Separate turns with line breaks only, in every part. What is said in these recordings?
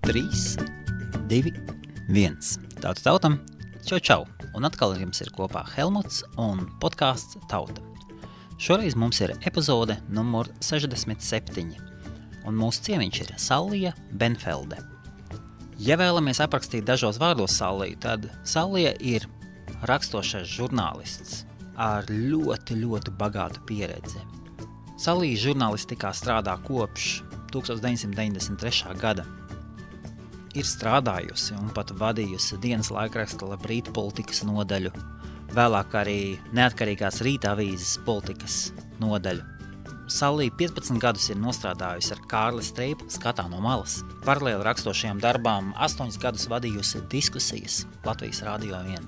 3, 2, 1. Tauta tautam, čau! Un atkal ar jums ir kopā Helmuts un podcasts Tauta. Šoreiz mums ir epizode numur 67, un mūsu ciemiņš ir Sallija Benfelde. Ja vēlamies aprakstīt dažos vārdos Salliju, tad Sallija ir rakstošais žurnālists ar ļoti bagātu pieredzi. Sallija žurnālistikā strādā kopš 1993. gada. Ir strādājusi un pat vadījusi dienas laikraksta Labrīt politikas nodaļu, vēlāk arī neatkarīgās Rīta avīzes politikas nodaļu. Sallija 15 gadus ir nostrādājusi ar Kārli Streipu Skatā no malas. Paralēli rakstošajām darbām 8 gadus vadījusi diskusijas Latvijas Radio 1.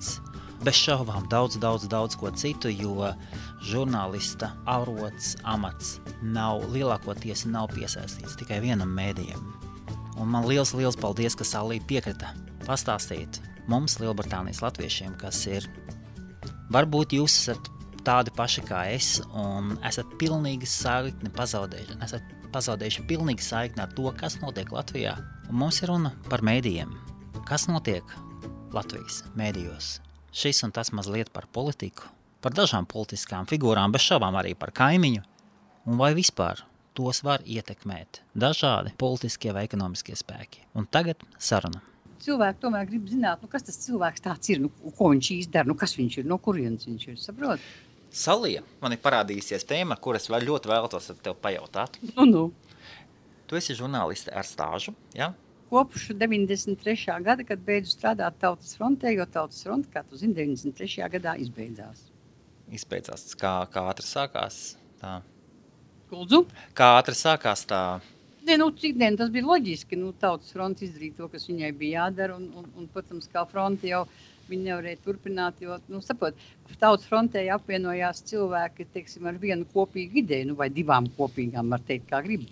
Bez šaubām daudz ko citu, jo žurnālista arots, amats lielākoties nav piesaistīts tikai vienam mēdījam. Un man liels paldies, ka Sallija piekrita pastāstīt mums, Lielbritānijas latviešiem, kas ir, varbūt jūs esat tādi paši kā es un esat pilnīgi saikni pazaudējuši pilnīgi saikni ar to, kas notiek Latvijā. Un mums ir runa par mēdījiem. Kas notiek Latvijas mēdījos? Šis un tas mazliet par politiku, par dažām politiskām figūrām, bez šaubām arī par kaimiņu, un vai vispār tos var ietekmēt dažādi politiskie vai ekonomiskie spēki. Un tagad saruna.
Cilvēki tomēr grib zināt, kas tas cilvēks tāds ir, ko viņš izdara, kas viņš ir, no kurienes viņš ir, saprot?
Sallija, man ir parādījusies tēma, kuras vēl ļoti vēlētos ar tev pajautāt. Tu esi žurnāliste ar stāžu, jā?
Kopš 93. gada, kad beidzu strādāt Tautas frontē, jo Tautas fronte, kā tu zini, 93. gadā izbeidzās.
Izbeidzās. Kā ātri sākās tā?
Kuldzu?
Kā ātri sākās tā?
Tas bija loģiski. Tautas fronte izdarīja to, kas viņai bija jādara, un protams, kā fronte jau viņi nevarēja turpināt, jo, Tautas frontē apvienojās cilvēki, teiksim, ar vienu kopīgu ideju, vai divām kopīgām, var teikt, kā grib.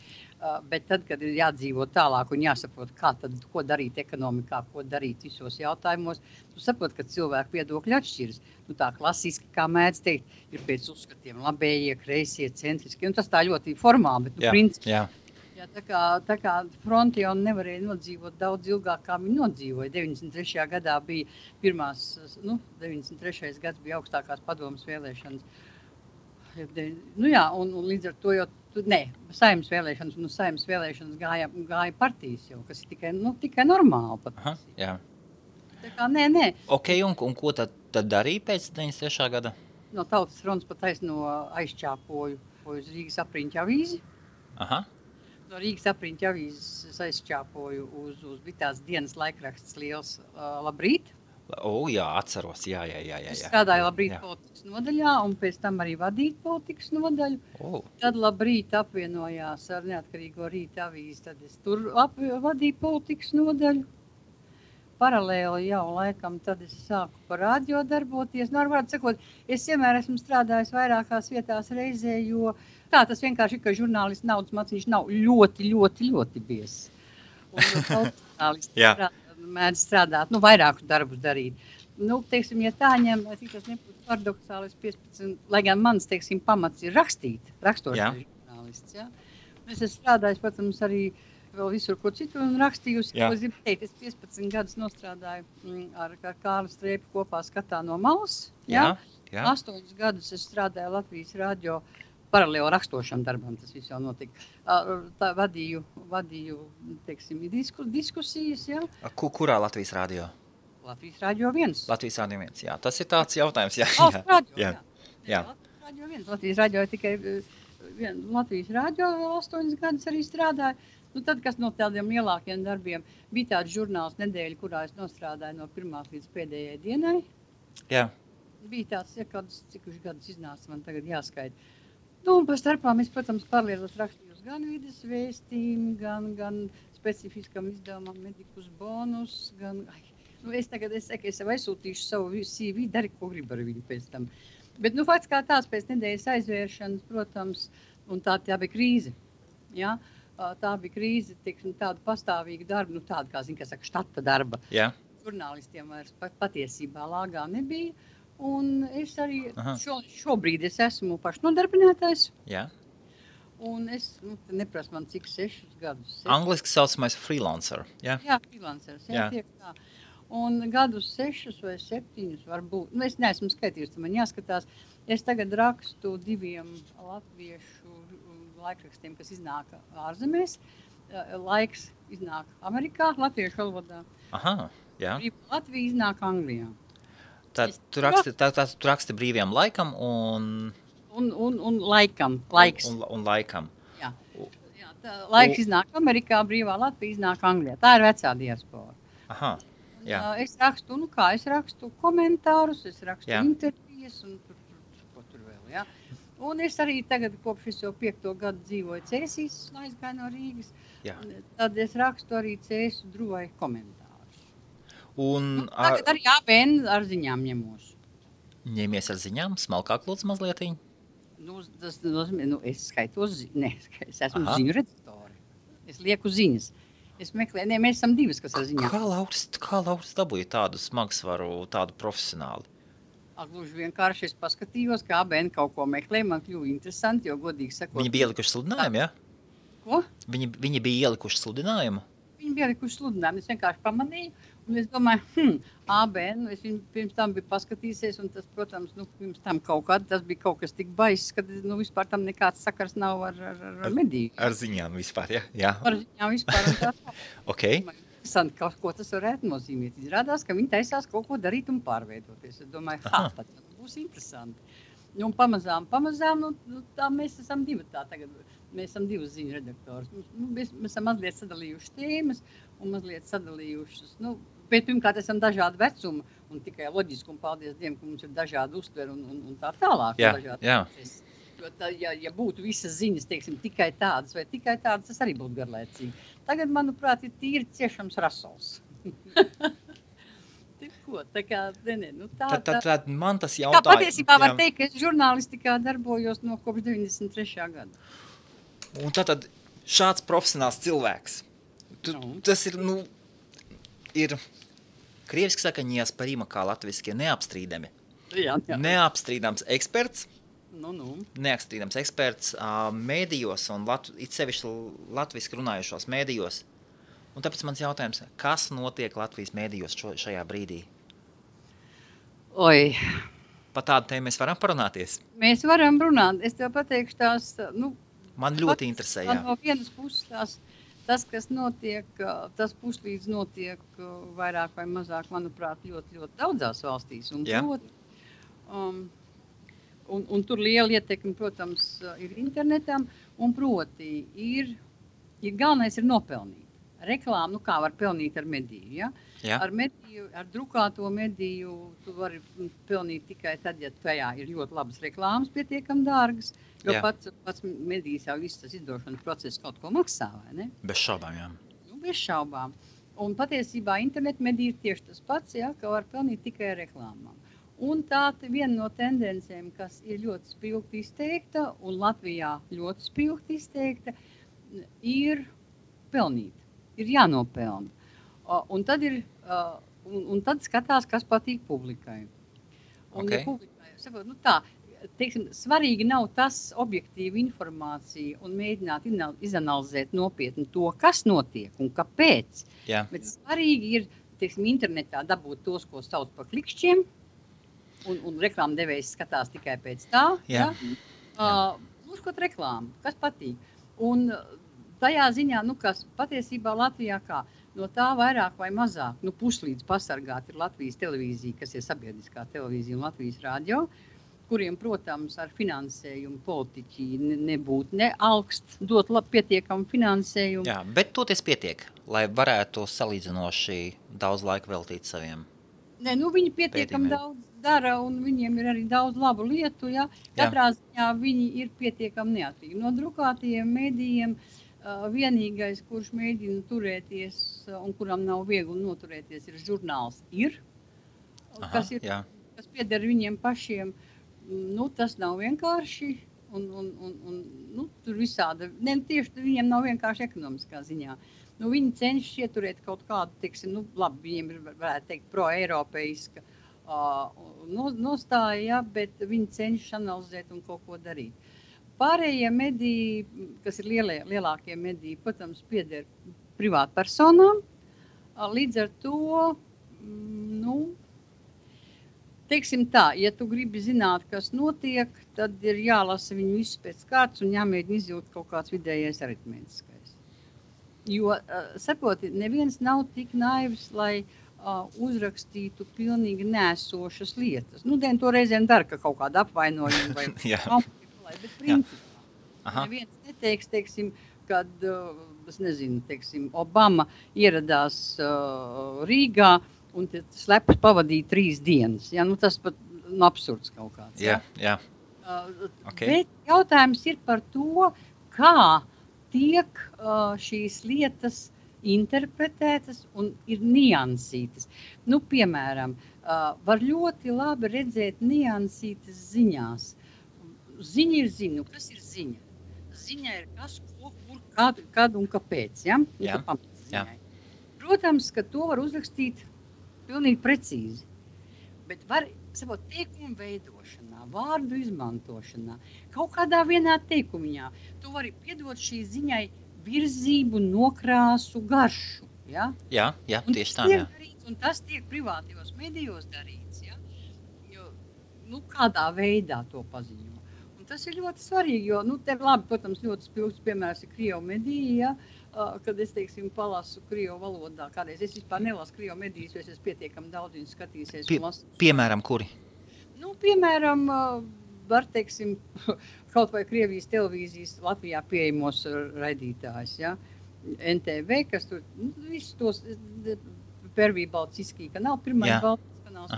Bet tad, kad ir jādzīvo tālāk un jāsaprot, ko darīt ekonomikā, ko darīt visos jautājumos, tu saprot, ka cilvēku viedokļi atšķiras. Tā klasiski, kā mēdz teikt, ir pēc uzskatiem labējie, kreisie, centriski, un tas tā ļoti formāli, bet principā. Jā, tā kā fronti jau nevarēja nodzīvot daudz ilgāk, kā viņi nodzīvoja. 93. gadā bija 93. gads bija augstākās padomas vēlēšanas. Un līdz ar to jau saimnes vēlēšanas, un saimnes vēlēšanas gāja partijas jau, kas ir tikai normāli pat.
Aha, jā.
Tā kā nē.
Ok, un ko tad darīja pēc 93. gada?
No Tautas frontes pat aizčāpoju uz Rīgas apriņķa avīzi.
Aha.
No Rīgas apriņķa avīzes aizčāpoju uz bija tās dienas laikraksts liels Labrīt.
Jā, atceros, jā.
Es strādāju Labrīt politikas nodaļā, un pēc tam arī vadīt politikas nodaļu. Tad Labrīt apvienojās ar neatkarīgo Rīta avīzi, tad es tur vadīju politikas nodaļu. Paralēli jau laikam, tad es sāku par radio darboties. Varētu sakot, es vienmēr esmu strādājis vairākās vietās reizē, jo tas vienkārši ir, ka žurnālists naudas maciņš nav ļoti biezs. Un žurnālisti mēdz strādāt, vairākus darbus darīt. Teiksim, ja tā ņem, tas nebūtu paradoxāli, 15, lai gan mans, teiksim, pamats ir rakstošais žurnālists. Ja? Es esmu strādājis, protams, arī vēl visur, ko citu un rakstījusi. Ko es gribu teikt, es 15 gadus nostrādāju ar Kārli Streipu kopā Skatā no malas. Ja? 8 gadus es strādāju Latvijas radio paralēli rakstošam darbam, tas viss jau notika. Vadīju teiksim, diskusijas, jā.
Kurā Latvijas radio?
Latvijas radio 1.
Latvijas radio 1, jā. Tas ir tāds jautājums, jā.
Latvijas radio 1. Latvijas radio tikai Latvijas radio 8 gadus arī strādāju. Tad, kas no tādiem lielākiem darbiem, bija tāds žurnāls nedēļa, kurā es nostrādāju no pirmās līdz pēdējai dienai.
Jā.
Bija tāds, cik gadus iznāca, man tagad jāskaita. Un par starpām es, protams, paralēlos rakstījos gan vides vēstījumu, gan specifiskam izdevumam medikus bonus, es sev aizsūtīšu savu CV, dari, ko gribu ar viņu pēc tam. Bet, fakts kā tās pēc nedēļas aizvēršanas, protams, un tā bija krīze, jā. Tā bija krīze, teiksim, tāda pastāvīga darba, tāda, kā saka, štata darba.
Jā.
Žurnālistiem vairs patiesībā lāgā nebija. Un es arī šobrīd es esmu pašnodarbinātais.
Jā.
Un es, neprasu man cik 6 gadus.
Angliski saucamais freelancer, jā?
Jā, freelancers, jā, tiek tā. Un gadus 6 vai 7 varbūt, es neesmu skatījusi, man jāskatās. Es tagad rakstu 2 latviešu laikrakstiem, kas iznāk ārzemēs. Laiks iznāk Amerikā, latviešu valodā.
Aha, jā.
Latvija iznāk Anglijā.
Tad tu raksti brīvajam laikam
un laikam, laiks.
Un laikam.
Jā, laiks iznāk Amerikā, brīvā Latvija iznāk Anglijā. Tā ir vecā diaspora.
Aha, jā.
Es rakstu komentārus, es rakstu intervijas un ko tur vēl, jā. Un es arī tagad kopš es jau 5. gadu dzīvoju Cēsīs, aizgāju no Rīgas. Jā. Tad es rakstu arī Cēsu Druvai komentārus. Tagad arī ABN ar ziņām ņemos.
Ņemies ar ziņām, smalkāk lūdzu mazlietiņ?
Tas nozīmē, es skaitos, es esmu ziņu redaktori. Es lieku ziņas. Es meklēju, mēs esam 2, kas ar ziņām.
Kā Lauris dabūja tādu smagsvaru, tādu profesionāli?
Gluži vienkārši es paskatījos, kā ABN kaut ko meklē, man kļuva interesanti, jo godīgi sakot.
Viņi bija ielikuši sludinājumu, jā?
Ko?
Viņi bija ielikuši sludinājumu?
Viņi bija ielikuši sludinājumu, es vienkārši pamanīju, un es domāju, ABN, es viņu pirms tam biju paskatīsies, un tas, protams, pirms tam tas bija kaut kas tik baiss, ka vispār tam nekāds sakars nav ar mediju.
Ar ziņām vispār, jā?
Ar ziņām vispār, un tā.
Ok.
Interesanti, ko tas varētu nozīmēt. Izrādās, ka viņi taisās kaut ko darīt un pārveidoties. Es domāju, tad būs interesanti. Un pamazām, tā mēs esam 2 tagad. Mēs esam 2 ziņu redaktori. Mēs esam mazliet sadalījuši tēmas un mazliet sadalījušas. Bet pirmkārt esam dažādi vecumi un tikai loģiski un paldies Dievam, ka mums ir dažādi uztveri un tā tālāk.
Jā.
Jo ja būtu visas ziņas, teiksim, tikai tādas vai tikai tādas, tas arī būtu garlaicīgi. Tagad, manuprāt, ir tīri ciešams rasols. Tā kā,
Tad man tas jautājums...
Tā patiesībā var teikt, ka es žurnālistikā darbojos no kopš 93. gada.
Un tad šāds profesionāls cilvēks, tas ir, ir krieviski saka, neosporima, kā latviski, neapstrīdami.
Jā.
Neapstrīdams eksperts.
Neapstrīdams
eksperts mēdījos un it sevišķi latviski runājušos mēdījos. Un tāpēc mans jautājums, kas notiek Latvijas mēdījos šajā brīdī?
Oi.
Pa tādu tēmu mēs varam parunāties?
Mēs varam runāt. Es tev pateikšu tās,
man ļoti interesē, jā.
No vienas puses tas, kas notiek, tas puslīdz notiek vairāk vai mazāk, manuprāt, ļoti, ļoti daudzās valstīs. Un tur liela ietekme, protams, ir internetam, un proti galvenais ir nopelnīt. Reklāmu, kā var pelnīt ar mediju, ja?
Jā.
Ar drukāto mediju tu vari pelnīt tikai tad, ja tajā ir ļoti labas reklāmas, pietiekam dārgas, jo pats medijas jau viss tas izdošanas process kaut ko maksā, vai ne?
Bez šaubām, jā.
Bez šaubām. Un patiesībā internet medija ir tieši tas pats, ja, ka var pelnīt tikai ar reklāmām. Un tā viena no tendencēm, kas ir ļoti spilgti izteikta, un Latvijā ļoti spilgti izteikta, ir pelnīt. Ir jānopelna. Un tad skatās, kas patīk publikai. Un ja publikai, sakot, teiksim, svarīgi nav tas objektīva informācija un mēģināt izanalizēt nopietni to, kas notiek un kāpēc.
Jā. Bet
svarīgi ir, teiksim, internetā dabūt tos, ko sauc par klikšķiem, un reklāmdevējs skatās tikai pēc tā.
Jā.
Uzkot reklāmu, kas patīk. Un tajā ziņā, kas patiesībā Latvijā kā, no tā vairāk vai mazāk, puslīdz pasargāt ir Latvijas televīzija, kas ir sabiedriskā televīzija un Latvijas radio, kuriem, protams, ar finansējumu politiķi nebūtu neaugst, dot pietiekamu finansējumu.
Jā, bet toties pietiek, lai varētu salīdzinoši daudz laika veltīt saviem.
Viņi pietiekami daudz dara, un viņiem ir arī daudz labu lietu, ja. Katrā ziņā viņi ir pietiekami neatkarīgi. No drukātajiem mēdījiem vienīgais, kurš mēģina turēties un kuram nav viegli noturēties, ir žurnāls kas pieder viņiem pašiem. Tas nav vienkārši, un tur visāda, tieši viņiem nav vienkārši ekonomiskā ziņā. Viņi cenšas ieturēt kaut kādu, teiksim, labi, viņiem ir, varētu teikt, pro-eiropeiska nostāja, bet viņi cenšas analizēt un kaut ko darīt. Pārējie mediji, kas ir lielākie mediji, protams, pieder privātpersonām. Līdz ar to, teiksim tā, ja tu gribi zināt, kas notiek, tad ir jālasa viņu visu pēc kārtas un jāmēģina izjūt kaut kāds vidējais aritmētiskais. Jo, saproti, neviens nav tik naivs, lai uzrakstītu pilnīgi nesošas lietas. To reizēm dara, ka kaut kāda apvainojuma vai bet principā neviens neteiks, teiksim, kad, es nezinu, teiksim, Obama ieradās Rīgā un slepus pavadīja 3 dienas. Ja? Tas pat absurds kaut kāds.
Jā.
Bet jautājums ir par to, kā tiek šīs lietas interpretētas un ir niansītas. Piemēram, var ļoti labi redzēt niansītas ziņās. Ziņa ir ziņa. Kas ir ziņa? Ziņa ir kas, ko, kur, kad un kāpēc. Ja? Protams, ka to var uzrakstīt pilnīgi precīzi. Bet var, teikumu veidošanā, vārdu izmantošanā, kaut kādā vienā teikumiņā, tu vari piedot šī ziņai virzību, nokrāsu, garšu. Ja? Jā,
tieši tā.
Un tas tiek privātajos medijos darīts. Ja? Jo, kādā veidā to paziņo. Un tas ir ļoti svarīgi, jo, te labi, protams, ļoti spilgts piemērs ir Krievu mediji, ja? Kad es, teiksim, palasu Krievu valodā. Kādreiz es vispār nelasu Krievu medijas, jo es pietiekami daudz viņu skatīsies un lasu.
Piemēram, kuri?
Piemēram, var, teiksim, kaut vai Krievijas televīzijas Latvijā pieejamos raidītājs, ja? NTV, kas tur, visus tos Pervī Baltiskī kanāli, pirmais Baltiskī kanāls.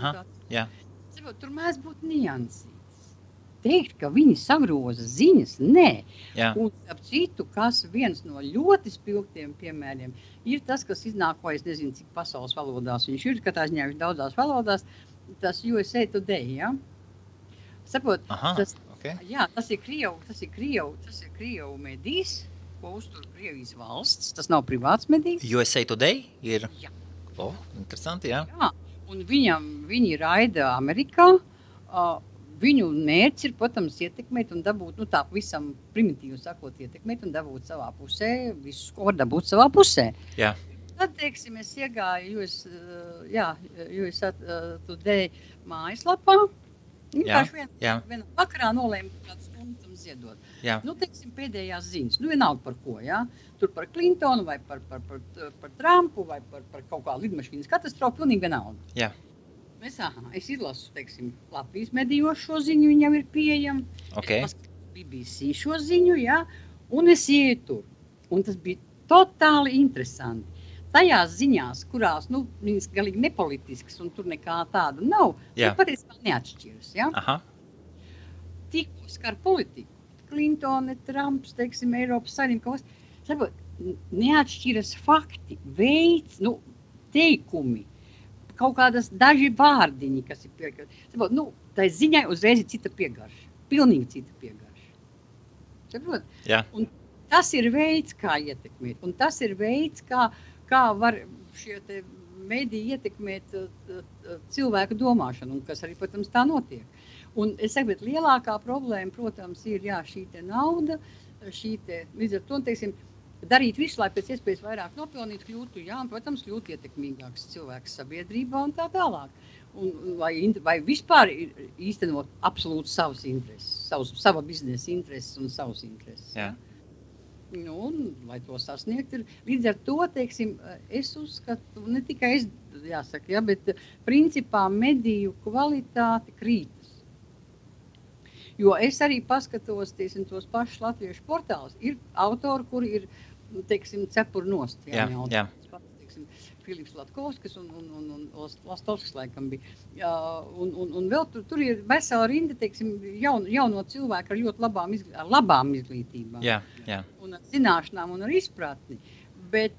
Tur mēs būtu niansīts. Teikt, ka viņi sagroza ziņas, nē. Un ap citu, kas viens no ļoti spilgtiem piemēriem, ir tas, kas iznāk, vai es nezinu, cik pasaules valodās viņš ir, katrā ziņā viņš daudzās valodās, tas USA Today, ja? Sapot, tas ir Krievu medijs, ko uztur Krievijas valsts, tas nav privāts medijs.
USA Today ir? Jā. Interesanti, jā.
Jā, un viņi raida Amerikā, viņu mērķis ir, protams, ietekmēt un dabūt, tā visam primitīvi sakot, ietekmēt un dabūt savā pusē, visus, ko var dabūt savā pusē.
Jā.
Tad, teiksim, es iegāju USA Today mājaslapā, vienā vakarā nolēmu kādu stundu tam ziedot. Teiksim, pēdējās ziņas, vienalga par ko, tur par Clintonu vai par Trumpu vai par kaut kā lidmašīnas katastrofu, pilnīgi vienalga.
Jā.
Es izlasu, teiksim, Latvijas medijos šo ziņu, viņam ir pieejama. Es paskatīju BBC šo ziņu, un es ieju tur. Un tas bija totāli interesanti. Tajās ziņās, kurās, viņas galīgi nepolitiskas un tur nekā tāda nav, patiesībā neatšķiras, Tikko skar politiku, Clintone, Trumps, teiksim, Eiropas Savienība, neatšķiras fakti, veids, teikumi. Kaut kādas daži vārdiņi, kas ir piegarši. Tai ziņai uzreiz ir cita piegarša. Pilnīgi cita piegarša. Saprot? Un tas ir veids, kā ietekmēt. Un tas ir veids, kā var šie te mediji ietekmēt cilvēku domāšanu, un kas arī, protams, tā notiek. Un es saku, bet lielākā problēma, protams, ir šī te nauda, līdz ar to, teiksim, darīt visu, lai pēc iespējas vairāk nopelnīt, kļūtu, protams, kļūt ietekmīgāks cilvēks sabiedrībā un tā tālāk. Vai vispār īstenot absolūti savas intereses, sava biznesa intereses un savas intereses. Lai to sasniegt ir. Līdz ar to, teiksim, es uzskatu, ne tikai es, jāsaka, bet principā mediju kvalitāte krītas. Jo es arī paskatos, teiksim, tos pašus latviešu portālus. Ir autori, kuri ir, teiksim, cepur nost. Teiksim, Filips Latkovskis un Lastovskis laikam bija. Un vēl tur ir vesela rinda, teiksim, jauno cilvēku ar ļoti labām izglītībām. Un ar zināšanām un ar izpratni. Bet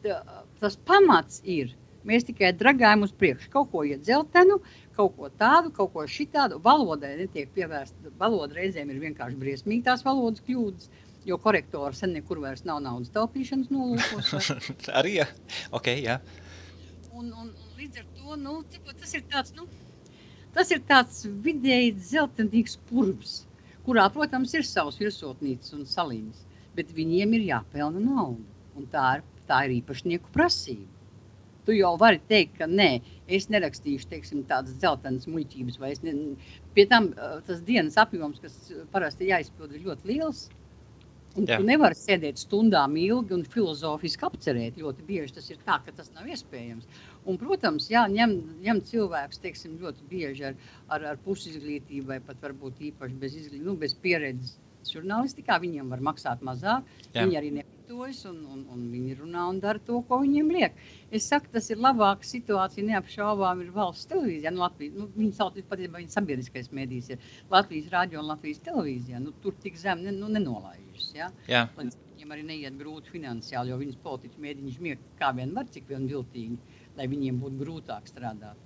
tas pamats ir, mēs tikai dragājam uz priekšu. Kaut ko iet dzeltenu, kaut ko tādu, kaut ko šitādu. Valodai netiek pievērsta. Valoda reizēm ir vienkārši briesmīgi tās valodas kļūdas. Jo korektori sen nekur vairs nav naudas taupīšanas nolūkos.
Arī, jā. Jā.
Un līdz ar to, tas ir tāds vidēji dzeltenīgs purvs, kurā, protams, ir savs virsotnīcas un saliņas, bet viņiem ir jāpelna nauda, un tā ir īpašnieku prasība. Tu jau vari teikt, ka nē, es nerakstīšu, teiksim, tādas dzeltenas muļķības, vai pie tam tas dienas apjoms, kas parasti jāizpild, ir ļoti liels, un tu nevari sēdēt stundām ilgi un filozofiski apcerēt, ļoti bieži tas ir tā, ka tas nav iespējams. Un, protams, ņem cilvēks, teiksim, ļoti bieži ar pusizglītību, vai pat varbūt īpaši bez pieredzes žurnālistikā, viņiem var maksāt mazāk, viņi arī nepatojas, un viņi runā un dara to, ko viņiem liek. Es saku, tas ir labāka situācija, neapšaubām ir valsts televīzijā, Latvijas, viņi sauc patiesībā, viņa sabiedriskais mēdījis ir Latvijas radio un Latvijas televīzijā, tur tik zem nenolaižas,
Jā.
Viņiem arī neiet grūti finansiāli, jo viņas politiķi mēģina žmiegt kā vien var, cik vien viltīgi, lai viņiem būtu grūtāk strādāt,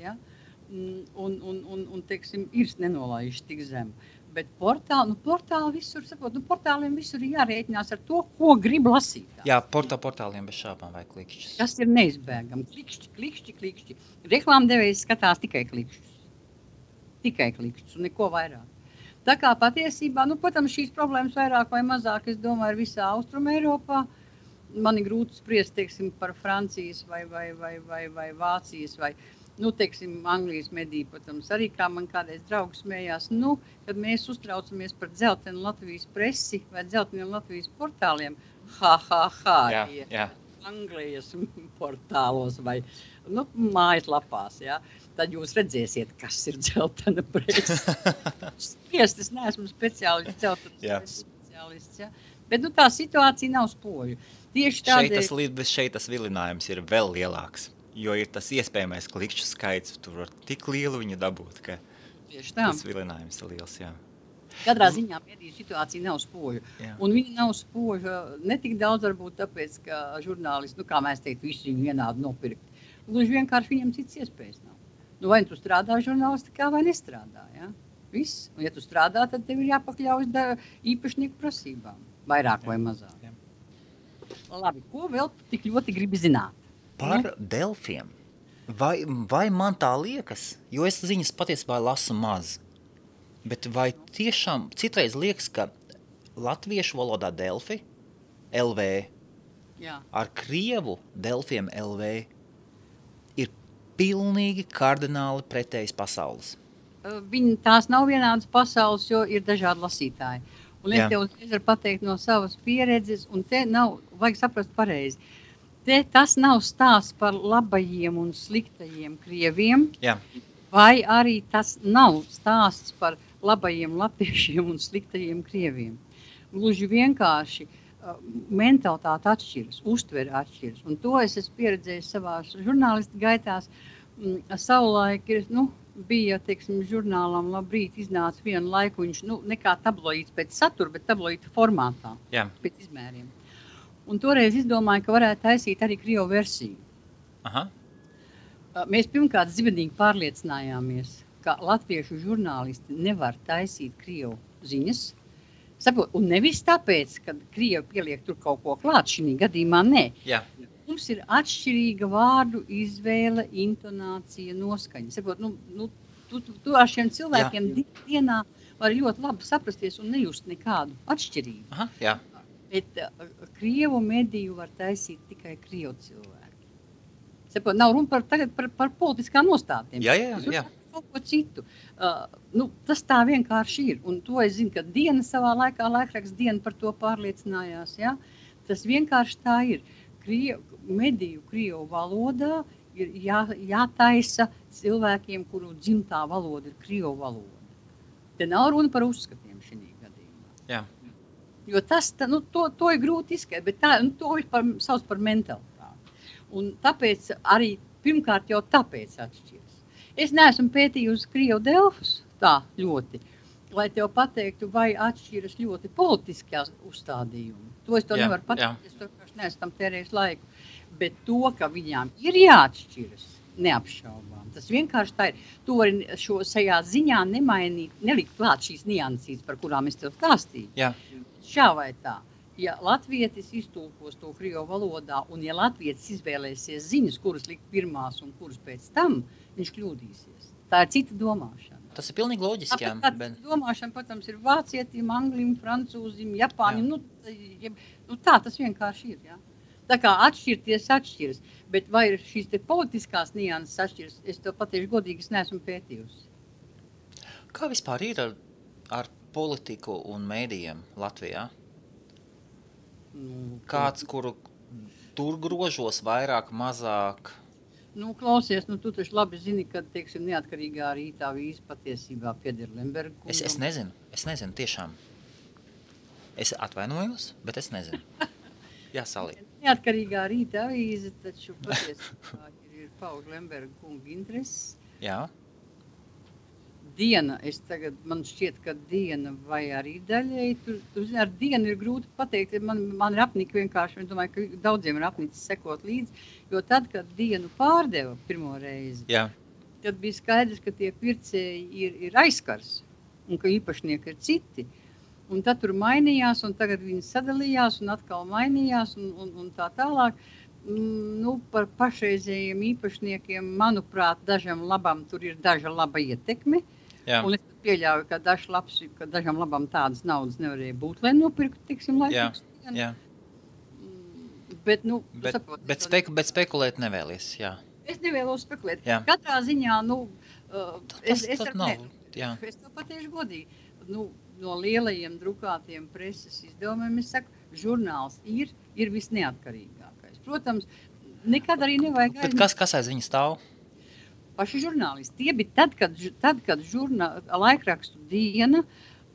un teiksim, ir nenolaižas tik zem. Bet portāli visur, portāliem visur ir jārēķinās ar to, ko grib lasīt.
Jā, portāliem bez šāpām vai klikšķis.
Tas ir neizbēgami. Klikšķi. Reklāmdevējs skatās tikai klikšķus. Tikai klikšķus un neko vairāk. Tā kā patiesībā, protams, šīs problēmas vairāk vai mazāk, es domāju, ir visā Austrum Eiropā. Man ir grūti spriest, teiksim, par Francijas vai Vācijas vai teiksim, Anglijas mediju, protams, arī kā man kādreiz draugs smējās, kad mēs uztraucamies par dzeltenu Latvijas presi vai dzelteniem Latvijas portāliem,
Jā.
Anglijas portālos vai mājaslapās, tad jūs redzēsiet, kas ir dzeltena presa. Spriest, es neesmu speciālists, dzeltenas speciālists, bet tā situācija nav spoža. Tieši tādēļ...
Šeit tas vilinājums ir vēl lielāks. Jo ir tas iespējamais klikšķu skaits, tur var tik lielu viņu dabūt, ka tas vilinājums ir liels,
Katrā ziņā mediju situācija nav spoža. Un viņa nav spoža ne tik daudz varbūt tāpēc, ka žurnālisti, kā mēs teiktu, visi viņu vienādi nopirkt. Gluži vienkārši viņam cits iespējas nav. Vai tu strādā žurnālistikā vai nestrādā, Viss. Un ja tu strādā, tad tev ir jāpakļaujas īpašnieku prasībām, vairāk vai mazāk. Labi, ko vēl tik ļoti gribi zināt?
Par delfiem. Vai man tā liekas, jo es ziņas patiesībā lasu maz, bet vai tiešām citreiz liekas, ka latviešu valodā delfi, LV, ar krievu delfiem LV ir pilnīgi kardināli pretējas pasaules?
Tās nav vienādas pasaules, jo ir dažādi lasītāji. Un es tev uzreiz varu pateikt no savas pieredzes, un te nav, vajag saprast pareizi. Tas nav stāsts par labajiem un sliktajiem krieviem, vai arī tas nav stāsts par labajiem latviešiem un sliktajiem krieviem. Gluži vienkārši mentalitāte atšķiras, uztvere atšķiras. Un to es esmu pieredzējis savās žurnālistu gaitās. Savulaik bija, teiksim, žurnālam Labrīt iznāca vienu laiku, viņš ne kā tabloīds pēc satura, bet tabloīda formātā, pēc izmēriem. Un toreiz izdomāju, ka varētu taisīt arī krievu versiju. Mēs pirmkārt zibenīgi pārliecinājāmies, ka latviešu žurnālisti nevar taisīt krievu ziņas. Un nevis tāpēc, ka krievi pieliek tur kaut ko klāt, šī gadījumā nē. Mums ir atšķirīga vārdu izvēle, intonācija, noskaņa. Tu ar šiem cilvēkiem dienā var ļoti labi saprasties un nejust nekādu atšķirību. Bet krievu mediju var taisīt tikai krievu cilvēki. Nav runa par politiskām nostātiem.
Jā.
Kaut ko citu. Tas tā vienkārši ir. Un to es zinu, ka Diena savā laikā, laikraksts Diena par to pārliecinājās. Tas vienkārši tā ir. Mediju krievu valodā ir jātaisa cilvēkiem, kuru dzimtā valoda ir krievu valoda. Te nav runa par uzskatiem šī gadījumā. Jo to ir grūti izskatīt, bet to ir sauc par mentalitāti. Un tāpēc arī pirmkārt jau tāpēc atšķiras. Es neesmu pētījusi krievu delfus tā ļoti, lai tev pateiktu, vai atšķiras ļoti politiskās uzstādījumi. To es to nevaru pateikt, es to neesmu tam tērējis laiku. Bet to, ka viņām ir jāatšķiras, neapšaubām. Tas vienkārši tā ir. Tu vari šajā ziņā nemainīt, nelikt klāt šīs niansītes, par kurām es tev stāstīju. Šā vai tā. Ja latvietis iztulkos to krievu valodā, un ja latvietis izvēlēsies ziņas, kuras likt pirmās un kuras pēc tam, viņš kļūdīsies. Tā ir cita domāšana.
tas ir pilnīgi loģiski, jā.
Bet domāšana, protams, ir vācietim, anglim, francūzim, japāņim, tā tas vienkārši ir, jā. Tā kā atšķiras, bet vai ir šīs te politiskās nianses atšķiras, es to patieši godīgi neesmu pētījusi.
Kā vispār ir ar politiku un mēdījiem Latvijā? Kāds, kuru tur grožos vairāk, mazāk?
Klausies, tu taču labi zini, ka, teiksim, neatkarīgā rītā vīza patiesībā pieder Lemberga kungam.
Es nezinu, tiešām. Es atvainojos, bet es nezinu. Jā, Salī.
Neatkarīgā rītā vīza taču patiesībā ir pauž Lemberga kunga intereses.
Jā.
Diena, man šķiet, ka Diena vai arī daļai, tu zini, ar Dienu ir grūti pateikt, man ir apnika vienkārši, es domāju, ka daudziem ir apnicis sekot līdzi, jo tad, kad Dienu pārdeva pirmo reizi,
jā.
Tad bija skaidrs, ka tie pircēji ir aizkars un ka īpašnieki ir citi. Un tad tur mainījās, un tagad viņi sadalījās un atkal mainījās un tā tālāk. Par pašreizējiem īpašniekiem, manuprāt, dažam labam tur ir daža laba ietekme.
Jā.
Un es pieļauju, ka dažam labam tādas naudas nevarēja būt, lai nopirktu, tiksim, laikus.
Jā. Bet spekulēt nevēlies, jā.
Es nevēlos spekulēt.
Jā.
Katrā ziņā, es to patieši godīgi. No lielajiem drukātiem preses izdevumiem, es saku, žurnāls ir visneatkarīgākais. Protams, nekad arī nevajag
Bet kas aiz viņa stāv?
Paši žurnālisti. Tie bija tad, kad laikrakstu Diena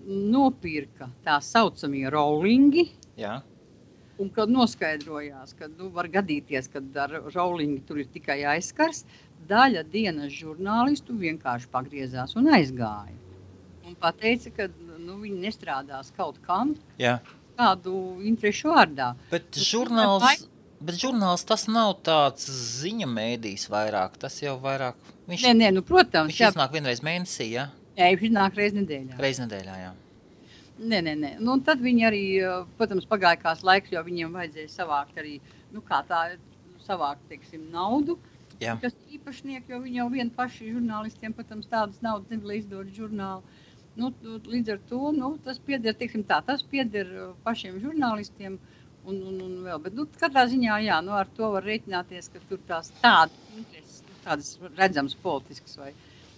nopirka tā saucamie rollingi,
jā.
Un kad noskaidrojās, ka var gadīties, kad ar rollingi tur ir tikai aizskars, daļa Dienas žurnālistu vienkārši pagriezās un aizgāja. Un pateica, ka viņi nestrādās kaut kam,
jā.
Kādu interešu vārdā.
Bet žurnāls tas nav tāds ziņa mēdījis vairāk, tas jau vairāk...
Protams.
Viņš iznāk vienreiz mēnesī, jā?
Jā, viņš iznāk reiz nedēļā.
Reiz nedēļā, jā.
Nē. Un tad viņi arī, protams, pagāja kāds laiks, jo viņiem vajadzēja savākt arī, savākt, teiksim, naudu,
jā.
Kas īpašnieki, jo viņi jau vien paši žurnālistiem, protams, tādas naudas nevar izdot žurnālu. Līdz ar to, tas pieder, teiksim tā, tas pieder pašiem žurnālistiem, un vēl, bet katrā ziņā, jā, ar to var rēķināties, ka tur tādas intereses, tādas redzamas politiskas vai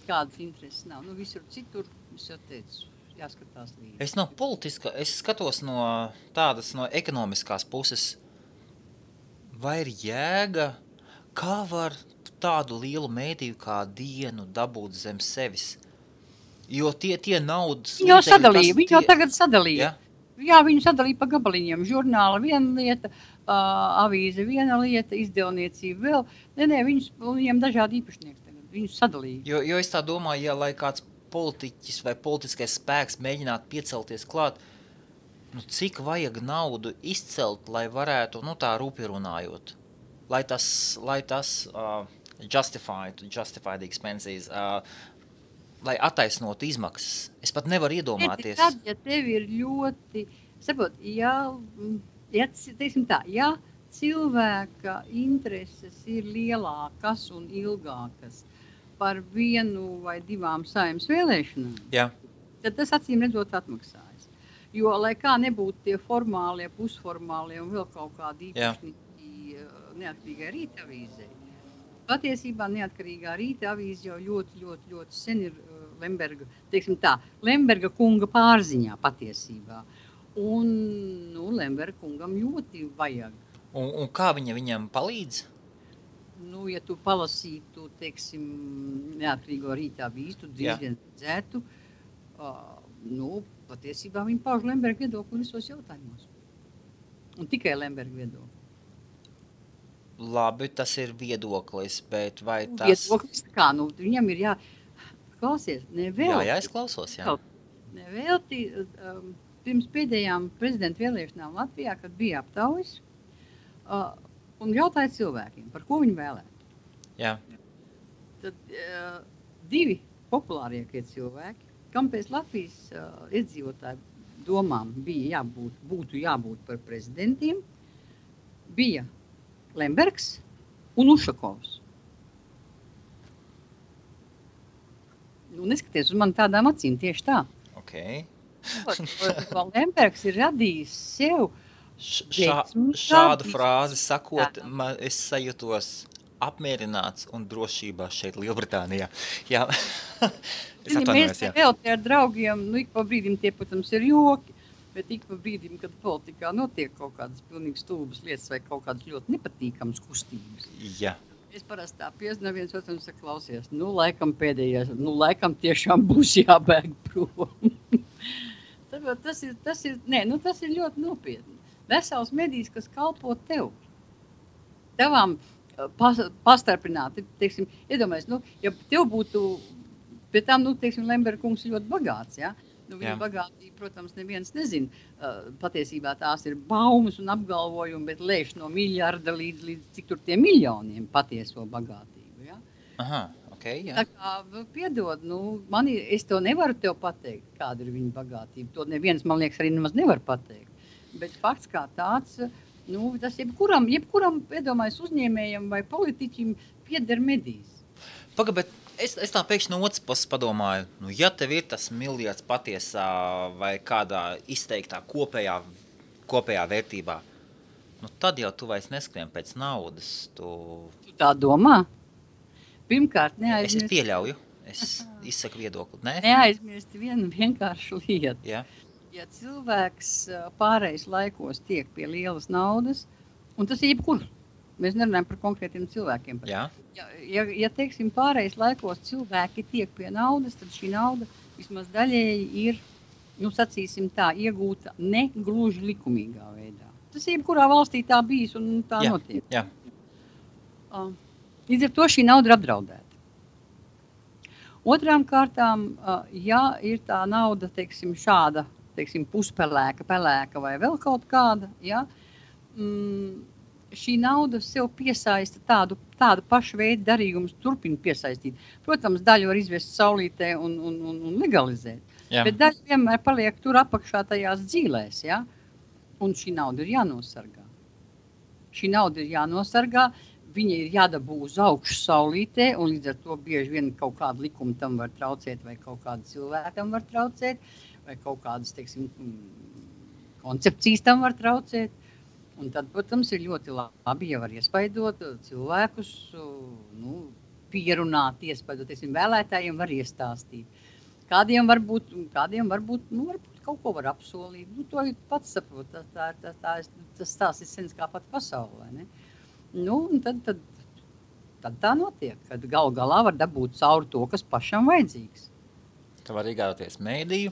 kādas intereses nav. Visur citur, es jau teicu, jāskatās līdzi.
Es no politiska, es skatos no ekonomiskās puses, vai ir jēga, kā var tādu lielu mēdīju kā Dienu dabūt zem sevis? Jo tie naudas...
Viņi jau tagad sadalīja.
Ja?
Jā, viņi sadalīja pa gabaliņiem. Žurnāla viena lieta, avīze viena lieta, izdevniecība vēl. Nē, viņiem dažādi īpašnieki tagad. Viņus sadalīja.
Jo es tā domāju, lai kāds politiķis vai politiskais spēks mēģinātu piecelties klāt, cik vajag naudu izcelt, lai varētu, tā rūpi runājot. Lai tas justify the expenses, lai attaisnotu izmaksas. Es pat nevaru iedomāties.
Tad, ja tev ir ļoti, teiksim tā, ja cilvēka intereses ir lielākas un ilgākas par vienu vai divām Saeimas vēlēšanām,
jā.
Tad tas acīm redzot atmaksājas. Jo, lai kā nebūtu tie formālie, pusformālie un vēl kaut kādi īpašnieki neatkarīgai rīta avīzei, patiesībā neatkarīgā rīta avīze jau ļoti sen ir Lemberga, teiksim tā, Lemberga kunga pārziņā patiesībā. Un, Lemberga kungam ļoti vajag.
Un kā viņam palīdz?
Ja tu palasītu, teiksim, neatkarīgo rīta avīzi, tu diezgan redzētu, patiesībā viņi pauž Lemberga viedokli visos jautājumos. Un tikai Lemberga viedokli.
Labi, tas ir viedoklis, bet vai tas...
Viedoklis, kā, viņam ir klausies, nevēlti.
Jā, es klausos, jā.
Nevēlti, pirms pēdējām prezidenta vēlēšanām Latvijā, kad bija aptaujas, un jautāja cilvēkiem, par ko viņi vēlētu.
Jā.
Tad divi populārākie cilvēki, kam pēc Latvijas iedzīvotāju domām būtu jābūt par prezidentiem, bija Lembergs un Ušakovs. Nu, neskaties uz mani tādām acīm, tieši tā.
Okay.
Lembergs ir radījis sev
šādu frāzi sakot, es sajūtos apmierināts un drošībā šeit Lielbritānijā. Jā. Es atvainojos, jā.
Mēs vēl te ar draugiem, ik pa brīdim tie, protams, ir joki, bet ik pa brīdim, kad politikā notiek kaut kādas pilnīgi stulbas lietas vai kaut kādas ļoti nepatīkamas kustības.
Jā.
Es parasti tā piezinu viens otru un saku, klausies, laikam pēdējais, laikam tiešām būs jābēg prom. tas ir ļoti nopietni. Vesels medijs, kas kalpo tev. Tevām pastarpināti, teiksim, iedomājies, ja tev būtu, pie tām, teiksim, Lemberga kungs ļoti bagāts, ja? Viņa bagātība, protams, neviens nezina. Patiesībā tās ir baumas un apgalvojumi, bet lēš no miljarda līdz cik tur tie miljoniem patieso bagātību, ja?
Aha, okay, jā.
Tā kā, piedod, es to nevaru tev pateikt, kāda ir viņa bagātība. To neviens, man liekas, arī nemaz nevar pateikt. Bet fakts kā tāds, tas jebkuram, iedomājas uzņēmējam vai politiķim pieder medijs.
Paga, bet es tā pēkšņi no otras puses padomāju, ja tev ir tas miljards patiesā vai kādā izteiktā kopējā vērtībā, tad jau tu vairs neskrien pēc naudas. Tu
tā domā? Pirmkārt, neaizmirst.
Es pieļauju, es izsaku viedokli, ne?
Neaizmirst vienu vienkāršu lietu.
Jā.
Ja cilvēks pārējais laikos tiek pie lielas naudas, un tas ir jebkur, mēs nerunājam par konkrētiem cilvēkiem.
Jā.
Ja teiksim, pārējais laikos cilvēki tiek pie naudas, tad šī nauda vismaz daļēji ir, sacīsim tā, iegūta ne gluži likumīgā veidā. Tas ir jebkurā valstī tā bijis un tā notiek.
Jā.
Līdz ar to šī nauda ir apdraudēta. Otrām kārtām, ja ir tā nauda, teiksim, šāda, puspelēka, pelēka vai vēl kaut kāda, ja, šī nauda sev piesaista tādu pašu veidu darījumus, turpina piesaistīt. Protams, daļu var izvest saulītē un legalizēt, bet daļa vienmēr paliek tur apakšā tajās dzīlēs, ja, un šī nauda ir jānosargā. Viņa ir jādabū uz augšu saulītē, un līdz ar to bieži vien kaut kāda likuma tam var traucēt, vai kaut kāda cilvēkam var traucēt, vai kaut kādas, teiksim, koncepcijas tam var traucēt. Un tad, protams, ir ļoti labi, ja var iespaidot cilvēkus, pierunāt, iespaidot, teiksim, vēlētājiem var iestāstīt. Kādiem varbūt kaut ko var apsolīt. To pats saprot, tas stāsts ir sens kā pat pasaulē, ne? Un tad tā notiek, kad galā var dabūt cauri to, kas pašam vajadzīgs.
Tā var iegājoties mēdīju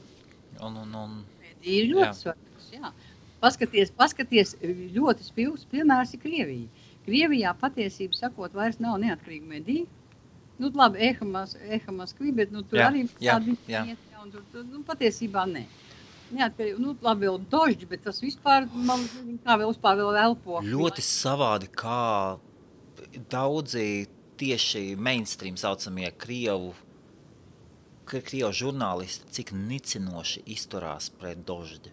Mēdīju ir ļoti svarīgs, jā. Paskaties, ļoti spilgs piemērs ir Krievija. Krievijā patiesību sakot vairs nav neatkarīga medija. Labi, Eha Moskvi, bet tur arī tādi iet, un tur patiesībā ne. Neatkarīgi, labi vēl dožģi, bet tas vispār, kā vēl elpo.
Ļoti savādi, kā daudzi tieši mainstream saucamie Krievu žurnālisti, cik nicinoši izturās pret dožģi.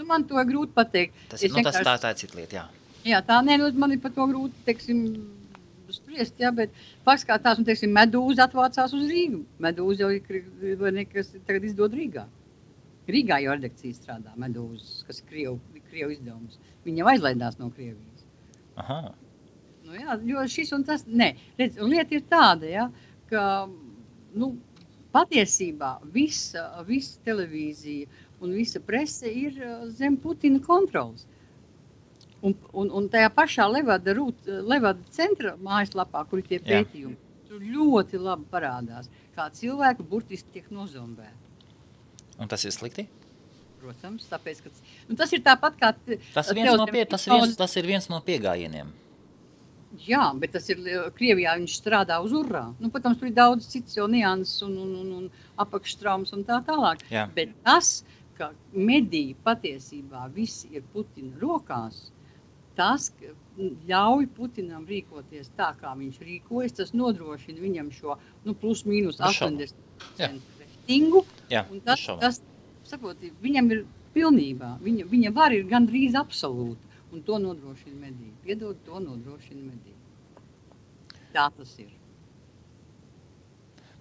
Man to ir grūti pateikt.
Tā ir cita lieta, jā. Jā,
man ir par to grūti, teiksim, spriest, jā, bet fakts kā tās, teiksim, Medūza atvācās uz Rīgu. Medūza jau ir, kas tagad izdod Rīgā. Rīgā jau redakcija strādā Medūzas, kas ir Krievu izdevums. Viņa jau aizlaidās no Krievijas.
Aha.
Jo šis un tas, redz, lieta ir tāda, ja, ka, patiesībā visa televīzija un visa prese ir zem Putina kontrolas. Un tajā pašā Levada centra mājaslapā, kur ir tie pētījumi, tur ļoti labi parādās, kā cilvēki burtiski tiek nozombēti.
Un tas ir slikti?
Protams, tāpēc, ka tas ir tāpat kā...
Tas ir viens no piegājieniem.
Jā, bet tas ir Krievijā, viņš strādā uz urrā. Protams, tur ir daudz cits jau nianses un apakštraumas un tā tālāk.
Jā.
Bet tas, ka mediji patiesībā visi ir Putina rokās, tas ļauj Putinam rīkoties tā, kā viņš rīkojas, tas nodrošina viņam šo plus mīnus 80% reitingu, un tas sakot, viņam ir pilnībā, viņa var ir gandrīz absolūta, un to nodrošina mediji. Piedod, to nodrošina mediji. Tā tas ir.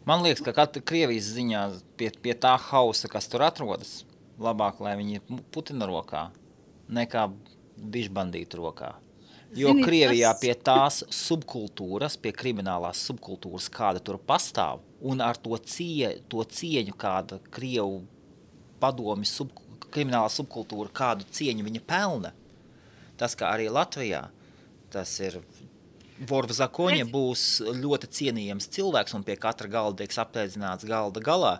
Man liekas, ka Krievijas ziņā pie tā hausa, kas tur atrodas, labāk, lai viņi ir Putina rokā, nekā bišbandītu rokā. Jo
Zini,
Krievijā pie tās subkultūras, pie kriminālās subkultūras, kāda tur pastāv, un ar to cieņu, kāda Krievu padomi kriminālā subkultūra, kādu cieņu viņa pelna, tas, kā arī Latvijā, tas ir Vor v zakoņa būs ļoti cienījams cilvēks, un pie katra galda tiek apēdzināts galda galā.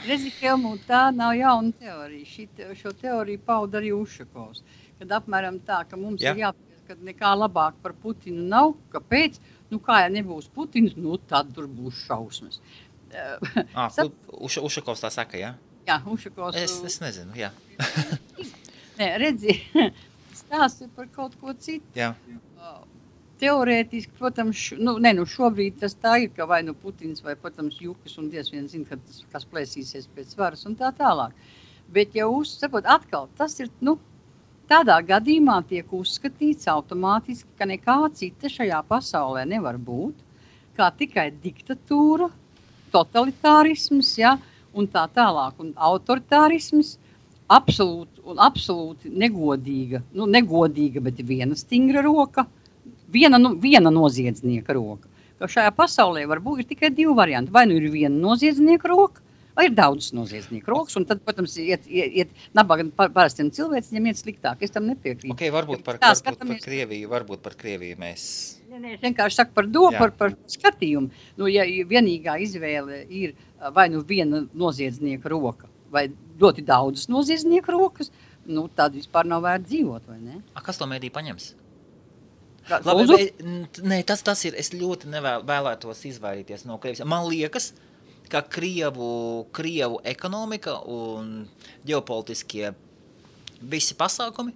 Redzi, Helmut, tā nav jauna teorija. Šo teoriju pauda arī Ušakovs. Kad apmēram tā, ka mums ir jāpēc, ka nekā labāk par Putinu nav. Kāpēc? Kā ja nebūs Putins, tad tur būs šausmas.
Ušakovs tā saka, jā?
Jā, Ušakovs.
Es nezinu, jā.
Nē, redzi, stāsti par kaut ko citu.
Jā.
Teorētiski, protams, šobrīd tas tā ir, ka vai Putins vai, protams, Jukas un diez vien zina, kas plēsīsies pēc varas un tā tālāk. Bet, ja atkal, tas ir, tādā gadījumā tiek uzskatīts automātiski, ka nekā cita šajā pasaulē nevar būt, kā tikai diktatūra, totalitārisms, un tā tālāk, un autoritārisms, absolūti negodīga, negodīga, bet viena stingra roka, viena noziedznieka roka. Ka šajā pasaulē varbūt ir tikai divi varianti. Vai ir viena noziedznieka roka, vai ir daudz noziedznieku rokas, un tad, protams, iet nabaga parastiem cilvēciem iet sliktāk. Es tam nepiekrītu.
Okay, varbūt par Krieviju mēs...
Es vienkārši saku par domu, par skatījumu. Ja vienīgā izvēle ir vai viena noziedznieka roka, vai ļoti daudzas noziedznieku rokas, tad vispār nav vērts dzīvot, vai ne?
Kas to mēdī paņems? Labi, nē, tas ir, es ļoti vēlētos izvairīties no Krievijas. Man liekas, ka Krievu ekonomika un ģeopolitiskie visi pasākumi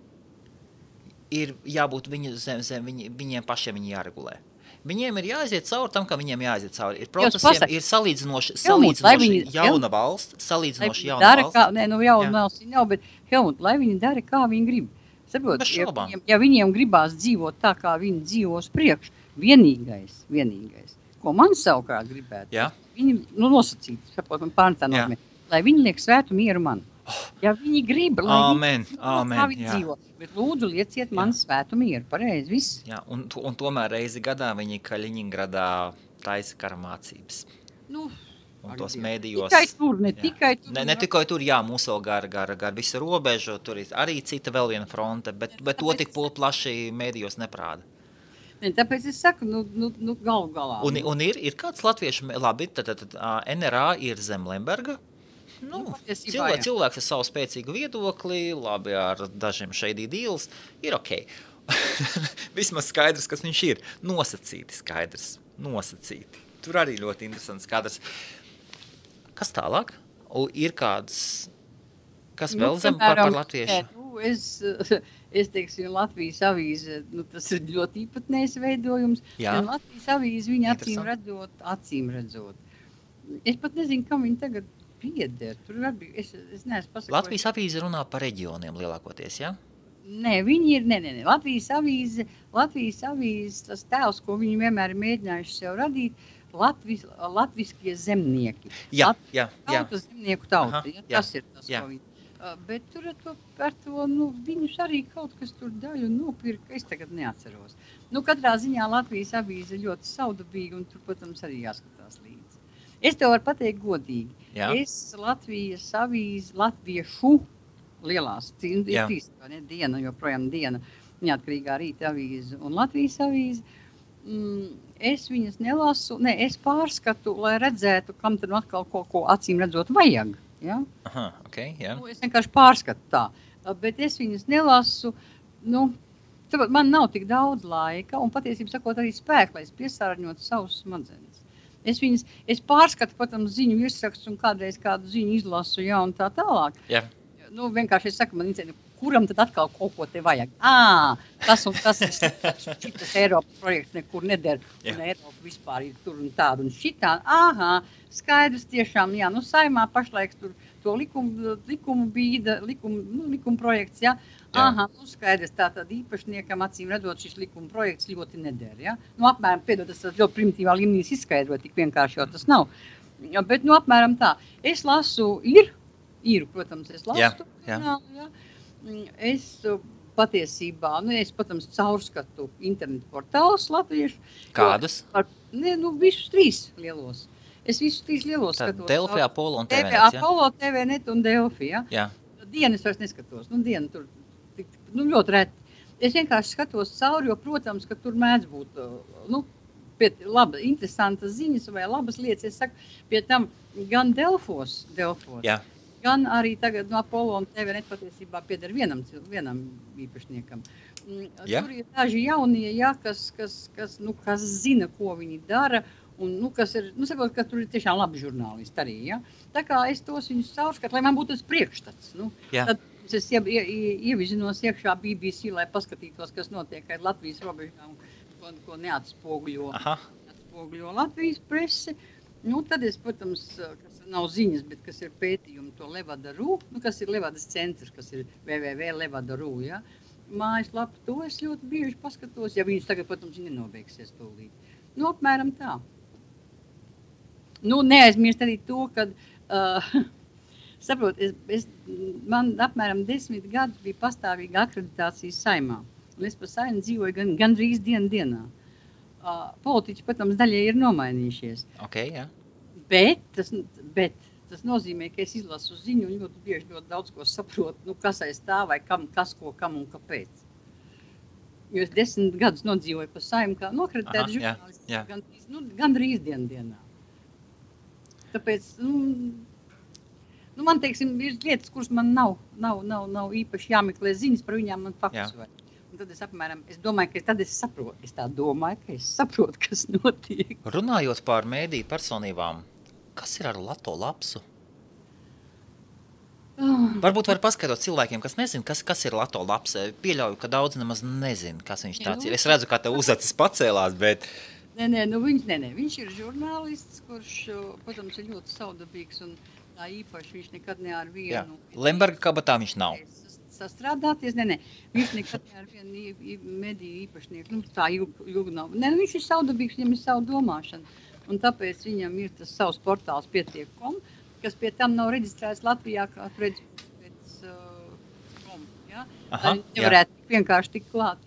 ir jābūt viņiem pašiem viņi jāregulē. Viņiem ir jāaiziet cauri tam, ka viņiem jāaiziet cauri. Ir procesiem, ir salīdzinoši jauna valsts,
jauna valsts nav, bet Helmut, lai viņi dara, kā viņi grib. Saprot, ja viņiem gribās dzīvot tā, kā viņi dzīvos priekš, vienīgais, ko man savukārt gribētu, viņi, nosacīt, saprot, man pārnetā nozīmē, lai viņi liek svētu mieru man. Ja viņi grib, lai viņi dzīvo, bet lūdzu lieciet man svētu mieru, pareizi, viss.
Jā, un tomēr reizi gadā viņi Kaļiņingradā taisa kara mācības. Un tos mēdījos... Ne tikai tur, mūs vēl gar visu robežu, tur ir arī cita vēl viena fronte, bet to tik plaši mēdījos neprāda.
Tāpēc es saku, galu galā.
Un ir kāds latviešu, labi, tad NRA ir zem Lemberga, cilvēks ar savu spēcīgu viedokli, labi ar dažiem shady deals, ir ok. Vismaz skaidrs, kas viņš ir. Nosacīti skaidrs, Tur arī ļoti interesants kadrs. Kas tālāk? Ir kāds, kas vēl zem par latviešu?
Es teiksim, Latvijas avīze, tas ir ļoti īpatnējs veidojums. Un Latvijas avīze viņa acīm redzot. Es pat nezinu, kam viņa tagad pieder. Tur varbūt, es neesmu pasakojis.
Latvijas avīze runā par reģioniem lielākoties, jā?
Nē, viņi ir, Latvijas avīze, tas tēls, ko viņi vienmēr ir mēģinājuši sev radīt, latviskie zemnieki.
Jā.
Tautas zemnieku tauta, tas ir tas, ko viņi. Bet tur par to, viņus arī kaut kas tur daļu nopirka, es tagad neatceros. Katrā ziņā Latvijas avīze ļoti saudabīga, un tur, protams, arī jāskatās līdzi. Es tev varu pateikt godīgi. Jā. Es Latvijas avīze, latviešu lielās, diena, joprojām diena, neatkarīgā rīta avīze un Latvijas avīze, es viņas nelasu, es pārskatu, lai redzētu, kam tad atkal ko acīm redzot vajag. Ja?
Aha, okay, jā.
Es vienkārši pārskatu tā, bet es viņas nelasu, man nav tik daudz laika un patiesībā sakot arī spēku, lai es piesārņotu savus smadzenes. Es pārskatu, protams, ziņu virsrakstu un kādreiz kādu ziņu izlasu, un tā tālāk.
Jā.
Vienkārši es saku, man interesē, kuram tad atkal kaut ko te vajag? Tas un tas ir šitas Eiropas projekts nekur neder, un Eiropa vispār ir tur un tāda un šitā. Skaidrs tiešām, Saimā pašlaik tur to likumu bīda, likuma projekts, ja? Aha, nu skaidrs, tātad īpašniekam acīm redzot šis likuma projekts ļoti neder, ja? Nu, apmēram, piedod, tas ļoti primitīvā līmenī izskaidrot, tik vienkārši jau tas nav. Bet, nu, apmēram tā. Es lasu īru, protams, es lasu. Jā. Es patiesībā, es, protams, caurskatu internetu portālus latviešu.
Kādus?
Visus 3 lielos. Es visus 3 lielos skatos.
Delfi, Apollo un TVNet, ja?
Apollo, TVNet un Delfi, ja?
Jā.
Dienu es vairs neskatos. Dienu tur ļoti reti. Es vienkārši skatos cauri, jo, protams, ka tur mēdz būt, interesantas ziņas vai labas lietas. Es saku, pie tam gan Delfos,
jā.
Gan arī tagad no Apollo un TVNet patiesībā pieder vienam īpašniekam.
Jā.
Tur ir daži jaunie, ja, kas zina, ko viņi dara, un, kas ir, saprot, ka tur ir tiešām labi žurnālisti arī, ja. Tā kā es tos viņus caurskatu, lai man būtu tas priekšstats, Tad es ievizinos iekšā BBC, lai paskatītos, kas notiek ar Latvijas robežām, ko neatspoguļo Latvijas prese. Tad es, protams, kas nav ziņas, bet kas ir pētījumi, to Levada.ru, kas ir Levadas centrs, kas ir www.levada.ru, ja. Mājaslapa, to es ļoti bieži paskatos, ja viņus tagad, protams, nenobeigsies tūlīt. Apmēram tā. Neaizmirst arī to, kad, saprot, man apmēram 10 gadus bija pastāvīga akreditācija Saeimā. Un es pa Saeimu dzīvoju gandrīz dienā. Politiķi, protams, daļai ir nomainījušies.
Okay, jā.
Bet tas nozīmē, ka es izlasu ziņu un ļoti bieži ļoti daudz ko saprotu, kas aiz tā vai kas, ko, kam un kāpēc. Jo es 10 gadus nodzīvoju pa Saeimu kā nokreditēta žurnālists, gandrīz dienā. Tāpēc, man, teiksim, ir lietas, kuras man nav īpaši jāmeklē ziņas, par viņām man faktus vajag. Un tad es domāju, ka tad es saprotu. Es tā domāju, ka es saprotu, kas notiek.
Runājot par mēdīju personībām, kas ir ar Lato Lapsu? Varbūt var paskaidrot cilvēkiem, kas nezin, kas ir Lato Laps. Pieļauju, ka daudz nemaz nezin, kas viņš tāds ir. Es redzu, kā tev uzacis pacēlās, bet...
Viņš ir žurnālists, kurš, protams, ir ļoti saudabīgs un tā īpaši viņš nekad ne ar vienu...
Lemberga kabatā viņš nav.
Sastrādāties, viņš nekad ne ar vienu mediju īpašnieku, tā ilgi nav. Viņš ir saudabīgs, viņam ir savu domāšana, un tāpēc viņam ir tas savs portāls pietiek.com, kas pie tam nav reģistrēts Latvijā kā pēc ja? Lai nevarētu vienkārši tik klāt.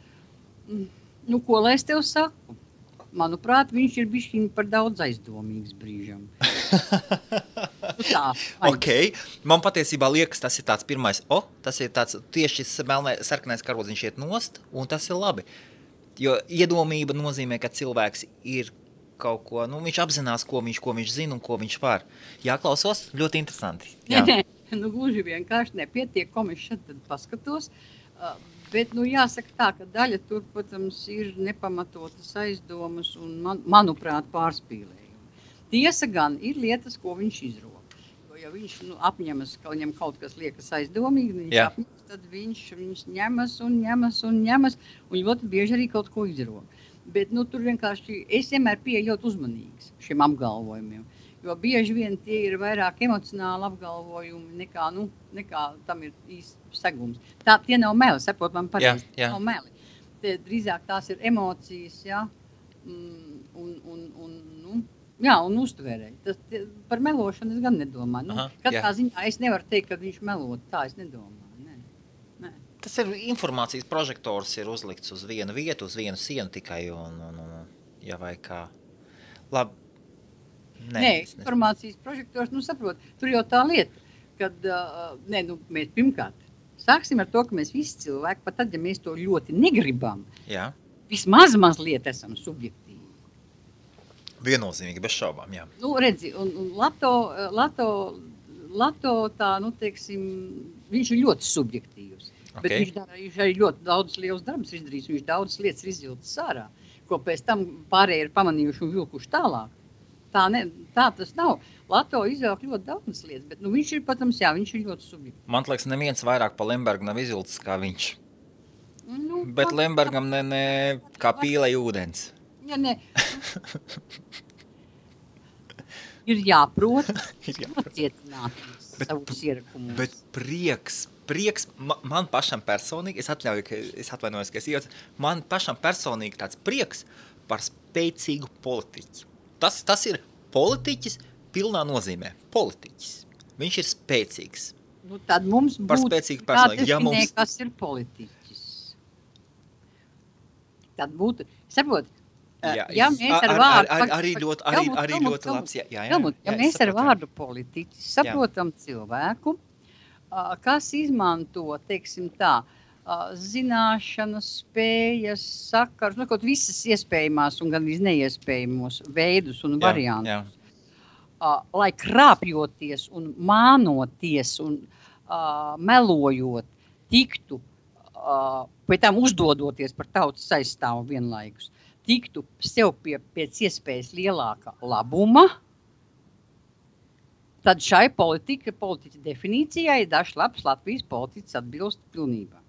Ko lai es tev saku? Manuprāt, viņš ir bišķiņ par daudz aizdomīgs brīžam.
Ok, man patiesībā liekas, tas ir tāds pirmais, tas ir tāds tieši sarkanais karodziņš iet nost, un tas ir labi. Jo iedomība nozīmē, ka cilvēks ir kaut ko, viņš apzinās, ko viņš zina un ko viņš var. Jāklausos, ļoti interesanti. Jā.
Gluži vienkārši nepietiek, ko mēs šeit tad paskatos. Bet, jāsaka tā, ka daļa tur, protams, ir nepamatotas aizdomas un, manuprāt, pārspīlējumi. Tiesa gan ir lietas, ko viņš izroka. Jo, ja viņš apņemas, ka viņam kaut kas liekas aizdomīgi, tad viņš ņemas un ļoti bieži arī kaut ko izroka. Bet, tur vienkārši es vienmēr pieeju ļoti uzmanīgs šiem apgalvojumiem. Jo bieži vien tie ir vairāk emocionāli apgalvojumi nekā tam ir īsts segums. Tie nav meli, saprot man pareizi, nav meli. Drīzāk tās ir emocijas, un uztvērēji. Par melošanu es gan nedomāju. Katrā ziņā es nevaru teikt, ka viņš melot, tā es nedomāju. Nē.
Tas ir informācijas prožektors ir uzlikts uz vienu vietu, uz vienu sienu tikai, vai kā. Labi.
Nē, informācijas prožektors, saprot, tur jau tā lieta, kad, mēs pirmkārt sāksim ar to, ka mēs visi cilvēki, pat tad, ja mēs to ļoti negribam, vismaz mazliet esam subjektīvi.
Viennozīmīgi, bez šaubām, jā.
Redzi, un Lato tā, teiksim, viņš ir ļoti subjektīvs, bet viņš arī ļoti daudz liels darbs izdarījis, viņš daudz lietas ir izvilcis ārā, ko pēc tam pārējie ir pamanījuši un vilkuši tālāk. Tā tas nav. Lato izvelk ļoti daudz lietas, bet viņš ir, protams, viņš ir ļoti subjektīvs.
Man liekas, neviens vairāk pa Lembergu nav izvilcis kā viņš. Bet Lembergam ne kā pīlei ūdens.
Ir jāprot nocietināties. savus ierakumus.
Bet prieks man pašam personīgi, es atvainojos, ka es iecu, man pašam personīgi tāds prieks par spēcīgu politiķi. Tas ir politiķis pilnā nozīmē. Politiķis. Viņš ir spēcīgs.
Nu, tad mums būtu jādefinē, kas ir politiķis. Tad būtu, saprot, ja mēs ar vārdu...
Arī ļoti labs.
Ja mēs ar vārdu politiķis saprotam cilvēku, kas izmanto, teiksim tā, zināšanas, spējas, sakars, kaut visas iespējamās un gan neiespējamos veidus un variantus, lai krāpjoties un mānoties un melojot tiktu, pēc tam uzdodoties par tautas aizstāvu vienlaikus, tiktu sev pēc iespējas lielāka labuma, tad šai politiķa definīcijai dažs labs Latvijas politiķis atbilst pilnībā.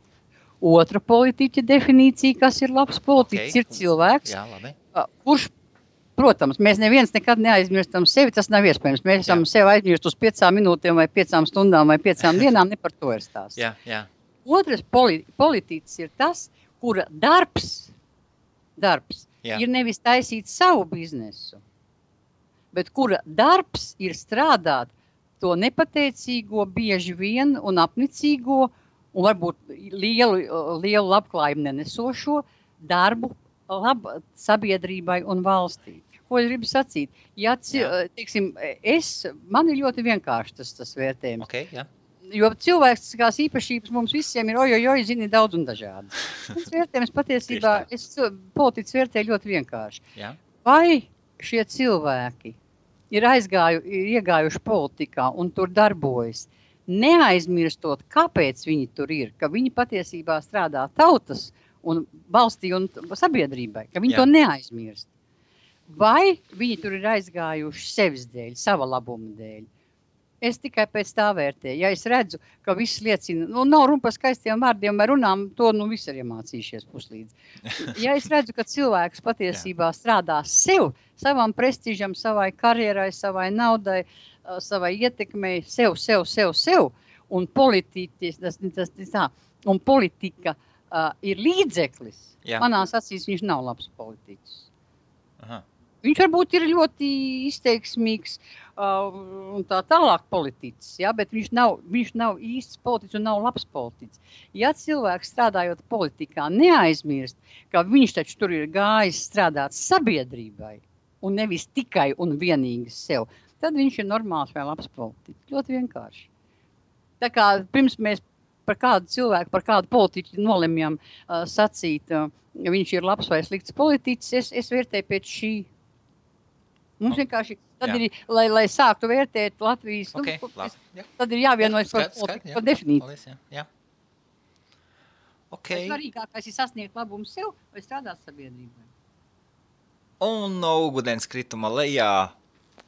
Otra politiķa definīcija, kas ir labs politiķis, ir cilvēks, kurš, protams, mēs neviens nekad neaizmirstam sevi, tas nav iespējams. Mēs esam sevi aizmirst uz 5 minūtēm vai 5 stundām vai 5 dienām, ne par to ir stāsts. Otrs politiķis ir tas, kura darbs ir nevis taisīt savu biznesu, bet kura darbs ir strādāt to nepateicīgo, bieži vien un apnicīgo un varbūt lielu labklājumu nenesošo darbu sabiedrībai un valstī. Ko es gribu sacīt? Ja, teiksim, man ir ļoti vienkārši tas vērtējums. Jo cilvēciskās īpašības mums visiem ir zini daudz un dažādi. Tas vērtējums patiesībā, politiķis vērtēju ļoti vienkārši. Vai šie cilvēki ir iegājuši politikā un tur darbojas, neaizmirstot, kāpēc viņi tur ir, ka viņi patiesībā strādā tautas un valstī un sabiedrībai, ka viņi to neaizmirst. Vai viņi tur ir aizgājuši sevis dēļ, sava labuma dēļ? Es tikai pēc tā vērtēju. Ja es redzu, ka viss liecina, nav runa par skaistiem vārdiem vai runām, to visi ir iemācījušies puslīdz. Ja es redzu, ka cilvēks patiesībā strādā sev, savam prestižam, savai karjerai, savai naudai, savai ietekmei, sev, un politika ir līdzeklis, manās acīs viņš nav labs politiķis.
Aha.
Viņš varbūt ir ļoti izteiksmīgs un tā tālāk politiķis, bet viņš nav īsts politiķis un nav labs politiķis. Ja cilvēks strādājot politikā neaizmirst, ka viņš taču tur ir gājis strādāt sabiedrībai un nevis tikai un vienīgi sev, tad viņš ir normāls vai labs politiķis. Ļoti vienkārši. Tā kā pirms mēs par kādu cilvēku, par kādu politiķu nolemjam sacīt, viņš ir labs vai slikts politiķis, es vērtēju pēc šī. Mums vienkārši, tad ir, lai sāktu vērtēt Latvijas, tad ir jāvienojas par definīciju. Svarīgākais ir sasniegt labumu sev vai strādāt sabiedrībai.
Un no ūdens krituma lejā,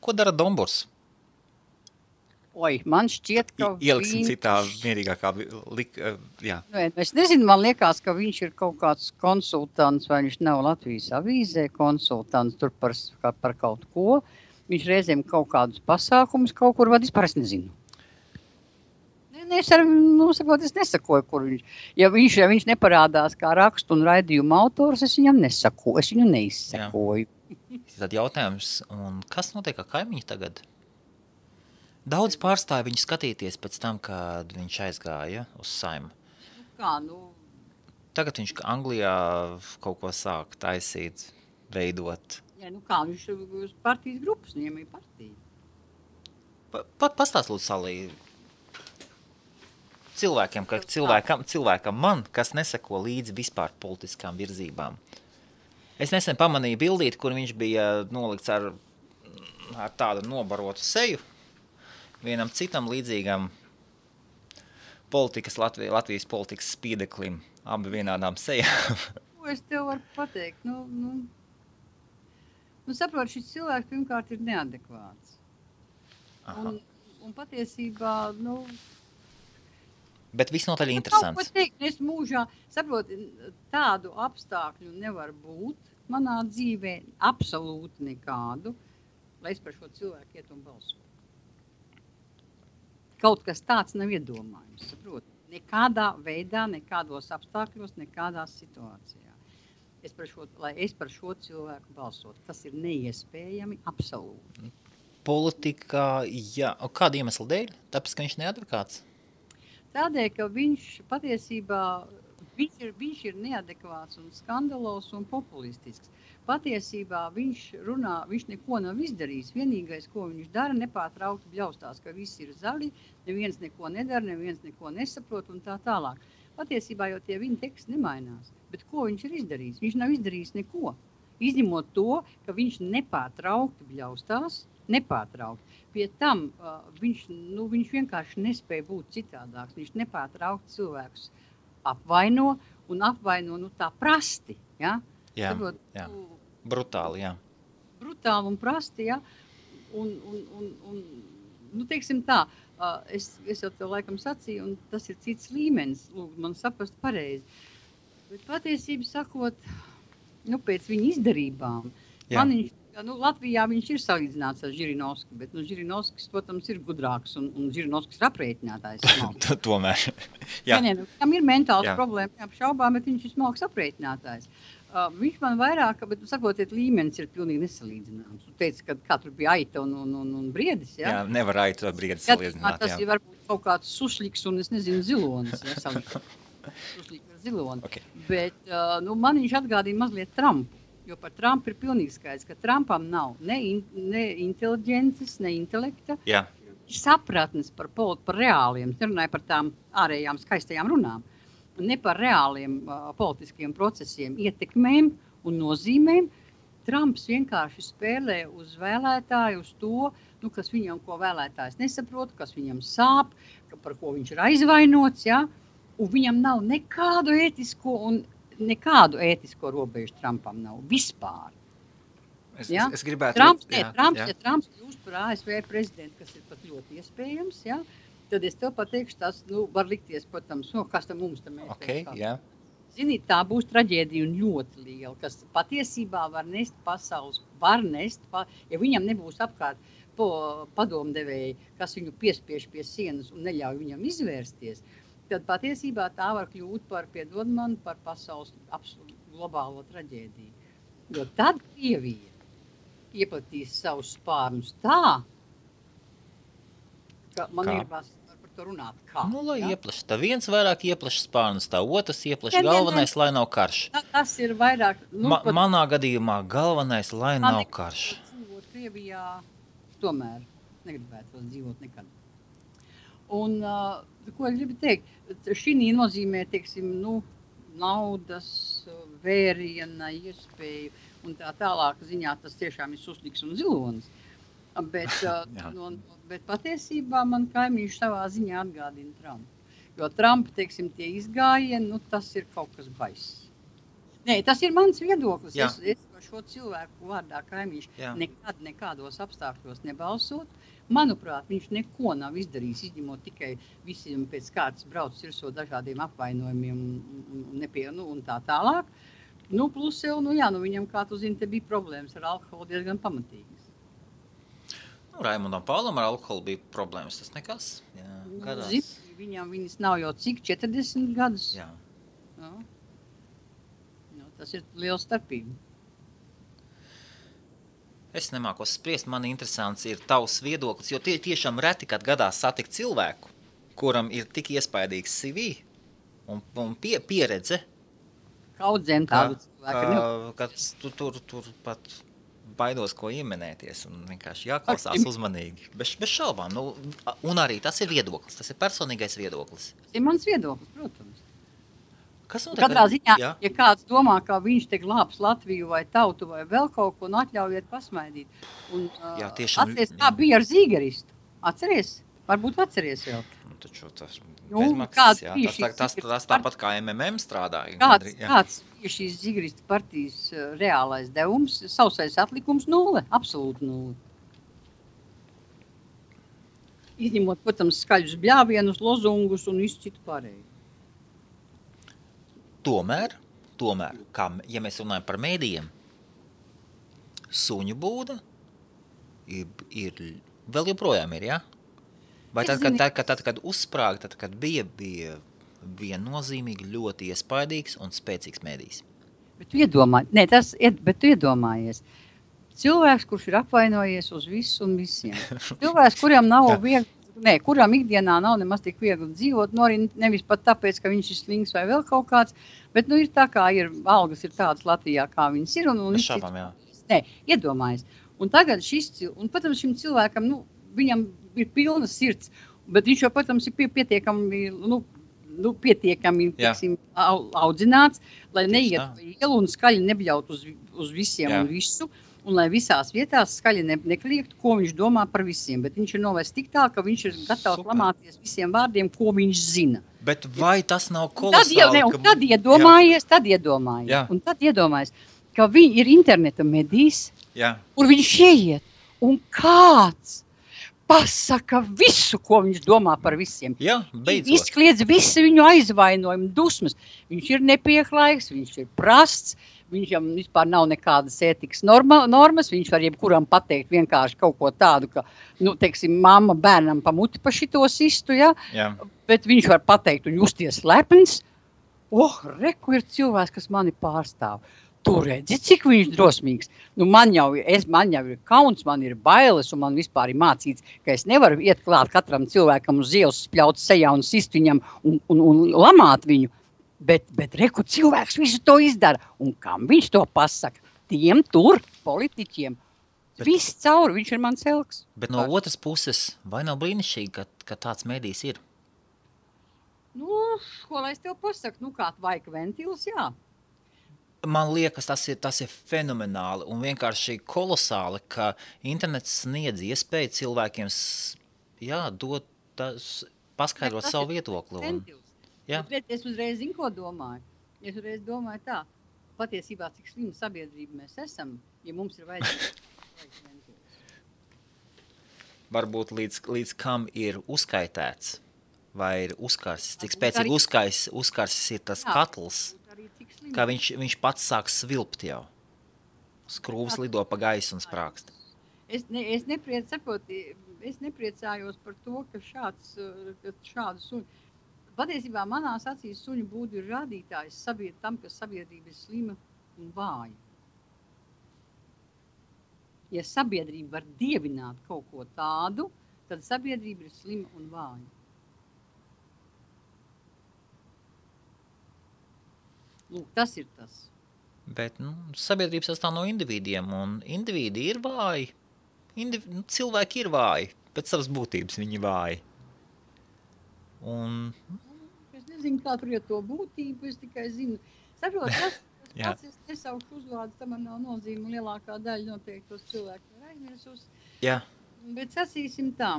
ko dara Domburs?
Man šķiet, ka
ieliksim citā mierīgākā
Es nezinu, man liekas, ka viņš ir kaut kāds konsultants, vai viņš nav Latvijas avīzē konsultants tur par kaut ko. Viņš reizēm kaut kādus pasākumus kaut kur vada, vispār es nezinu. Es nesakoju, kur viņš. Ja viņš neparādās kā rakstu un raidījuma autors, es viņam nesakoju, es viņu neizsakoju.
Tad jautājums, un kas notiek ar kaimiņu tagad? Daudz pārstāja viņu skatīties pēc tam, kad viņš aizgāja uz Saimu. Tagad viņš Anglijā kaut ko sāk taisīt, veidot.
Viņš uz partijas grupas, viņam ir partija.
Pastāst lūdzu, Salī, cilvēkam man, kas neseko līdzi vispār politiskām virzībām. Es nesen pamanīju bildīti, kur viņš bija nolikts ar tādu nobarotu seju, vienam citam līdzīgam Latvijas politikas spīdeklim, abi vienādām sejām.
Ko es tev varu pateikt? Saprot, šis cilvēks pirmkārt ir neadekvāts. Un patiesībā,
Bet visnotaļ interesants.
Kaut ko teikt, es mūžā, saprot, tādu apstākļu nevar būt manā dzīvē, absolūti nekādu, lai es par šo cilvēku iet un balsotu. kaut kas tāds nav iedomājums, saprot? Nekādā veidā, nekādos apstākļos, nekādās situācijā. Lai es par šo cilvēku balsotu, tas ir neiespējami absolūti.
Politikā, jā. Un kāda iemesla dēļ? Tāpēc, ka viņš neadvokāts?
Tādēļ, ka viņš patiesībā viņš ir neadekvāts un skandalos un populistisks. Patiesībā viņš neko nav izdarījis. Vienīgais, ko viņš dara, nepārtraukti bļaustās, ka visi ir zaļi, neviens neko nedara, neviens neko nesaprot un tā tālāk. Patiesībā jau tie viņa teksti nemainās. Bet ko viņš ir izdarījis? Viņš nav izdarījis neko. Izņemot to, ka viņš nepārtraukti bļaustās, Pie tam viņš vienkārši nespēja būt citādāks. Viņš nepārtraukti cilvēkus apvaino tā prasti. Ja?
Jā. Brutāli, jā.
Brutāli un prasti, ja? Teiksim tā, es jau tev laikam sacīju, un tas ir cits līmenis, man saprast pareizi. Bet patiesību sakot, pēc viņa izdarībām, Latvijā viņš ir salīdzināts ar Žirinovski, bet Žirinovskis, protams, ir gudrāks un Žirinovskis ir aprēķinātājs.
Tomēr.
Tam ir mentāls problēma, neapšaubām, bet viņš ir smalks aprēķinātājs. Viņš man vairāk, bet sakotiet, līmenis ir pilnīgi nesalīdzināms. Tu teici, ka katru bija aita un briedis, ja?
Jā, nevar aita vai briedis salīdzināt,
tas ir varbūt kaut kāds sušliks un, es nezinu, zilonis, ja, sušliks ar ziloni. Okay. Bet, man viņš atgādīja mazliet Trumpu. Jo par Trumpu ir pilnīgi skaidrs, ka Trumpam nav ne inteliģences, ne intelekta, sapratnes par reāliem, nerunāju par tām ārējām skaistajām runām, ne par reāliem politiskiem procesiem, ietekmēm un nozīmēm. Trumps vienkārši spēlē uz vēlētāju, uz to, kas viņam, ko vēlētājs nesaprot, kas viņam sāp, par ko viņš ir aizvainots, ja? Un viņam nav nekādu ētisko robežu Trumpam nav vispār.
Es gribētu...
Trumps kļūst par ASV prezidentu, kas ir pat ļoti iespējams, ja? Tad es tev pateikšu, tas var likties, protams, kas tam mums tam ir.
Okay, yeah.
Zini, tā būs traģēdija un ļoti liela, kas patiesībā var nest pasaules, ja viņam nebūs apkārt padomdevēji, kas viņu piespiež pie sienas un neļauj viņam izvērsties, tad patiesībā tā var kļūt par pasaules globālo traģēdiju. Jo tad Krievija ieplatīs savus spārnus tā, ka man gribas par to runāt kā.
Lai ieplaš. Tā viens vairāk ieplaš spārnus, tā otrs ieplaš galvenais, lai nav karš.
Tas ir vairāk...
Manā gadījumā galvenais, lai nav karš.
Dzīvot Krievijā tomēr negribētu dzīvot nekad. Un, ko es gribu teikt, šī nozīmē, teiksim, naudas, vēriena, iespēju un tā tālāk ziņā tas tiešām ir susliks un zilonis. Bet patiesībā man kaimiņš savā ziņā atgādina Trumpu. Jo Trumpa, teiksim, tie izgājieni, tas ir kaut kas baiss. Nē, tas ir mans viedoklis. Es par šo cilvēku vārdā kaimiņš nekādos apstākļos nebalsot. Manuprāt, viņš neko nav izdarījis, izņemot tikai visiem pēc kārtas brauc virsot dažādiem apvainojumiem un tā tālāk. Plus jau, viņam, kā tu zini, te bija problēmas ar alkoholu diezgan pamatīgas.
Raimundam Paulam ar alkoholu bija problēmas, tas nekas. Gadās.
Viņas nav jau cik, 40 gadus.
Jā.
Tas ir liela starpība.
Es nemākos spriest, man interesants ir tavs viedoklis, jo tiešām reti, kad gadās satikt cilvēku, kuram ir tik iespaidīgs CV un pieredze.
Kaudzēm tādu cilvēku.
Ka tur pat baidos, ko ieminēties un vienkārši jāklausās uzmanīgi. Bez šaubām. Un arī tas ir viedoklis, tas ir personīgais viedoklis.
Tas ir mans viedoklis, protams.
Katrā
ziņā, ja kāds domā, ka viņš te glābs Latviju vai tautu vai vēl kaut ko, atļaujiet pasmaidīt. Un, atceries, kā bija ar Zīgeristu. Atceries? Varbūt atceries vēl.
Taču tas bezmaksas, tas tāpat kā MMM strādāja.
Kāds bija šīs Zīgeristu partijas reālais devums, sausais atlikums 0, absolūti 0. Izņemot, protams, skaļus bļāvienus, lozungus un visu citu pārēju.
Tomēr, ja mēs runājam par mēdījiem, suņu būda ir vēl joprojām ir, jā?
Vai tad, kad uzsprāga, tad, kad bija viennozīmīgi ļoti iespaidīgs un spēcīgs mēdījis?
Bet tu iedomājies. Cilvēks, kurš ir apvainojies uz visu un visiem. Cilvēks, kuram nav viegli, kuram ikdienā nav nemaz tik viegli dzīvot, arī nevis pat tāpēc, ka viņš ir slings vai vēl kaut kāds, bet ir tā kā algas ir tādas Latvijā, kā viņas ir. Iedomājies. Un tagad protams, šim cilvēkam, viņam ir pilna sirds, bet viņš jau, protams, ir pietiekami tiksim, audzināts, lai neiet pa ielu un skaļi nebļaut uz visiem un visu, un lai visās vietās skaļi nekliegt, ko viņš domā par visiem, bet viņš ir novērst tik tā, ka viņš ir gatavs lamāties visiem vārdiem, ko viņš zina.
Bet vai tas nav kolosāli?
Tad iedomājies, ka viņi ir interneta medijs, kur viņš ieiet, un kāds pasaka visu, ko viņš domā par visiem. Izkliedz visu viņu aizvainojumu, dusmas. Viņš ir nepieklājīgs, viņš ir prasts, viņam vispār nav nekādas ētikas normas, viņš var jebkuram pateikt vienkārši kaut ko tādu, ka, teiksim, mamma bērnam pa muti pa šito sistu, bet viņš var pateikt un justies lepns. Reku ir cilvēks, kas mani pārstāv. Tu redzi, cik viņš drosmīgs. Man jau ir kauns, man ir bailes, un man vispār ir mācīts, ka es nevaru iet klāt katram cilvēkam uz ielas, spļaut sejā un sist viņam un lamāt viņu. Bet reku cilvēks visu to izdara. Un kam viņš to pasaka? Tiem tur, politiķiem. Viss cauri, viņš ir mans elks.
Bet no otras puses, vai nav brīnišķīgi, ka tāds mēdījis ir?
Ko lai es tev pasaku? Kāds vaika ventils, jā.
Man liekas, tas ir fenomenāli un vienkārši kolosāli, ka internets sniedz iespēju cilvēkiem paskaidrot savu viedokli.
Bet es uzreiz zinu, ko domāju. Es uzreiz domāju tā, patiesībā, cik slimu sabiedrību mēs esam, ja mums ir vajadzīgs ventils.
Varbūt līdz kam ir uzskaitēts vai ir uzkarsis, cik spēcīgi uzkarsis ir tas katls. Kā viņš pats sāk svilpt jau. Skrūvs lido pa gaisu un sprākst.
Es nepriecājos par to, ka šādu suņu. Patiesībā manās acīs suņu būdu ir rādītājs tam, ka sabiedrība ir slima un vāja. Ja sabiedrība var dievināt kaut ko tādu, tad sabiedrība ir slima un vāja. Tas ir tas.
Bet sabiedrība sastāv no individiem, un individi ir vāji. Cilvēki ir vāji, pēc savas būtības viņi vāji.
Es nezinu, kā tur ir to būtību, es tikai zinu. Saprot, es nesaukšu uzvārdu, tam man nav nozīme, lielākā daļa noteiktos cilvēku ir aizmirsus. Bet sacīsim tā,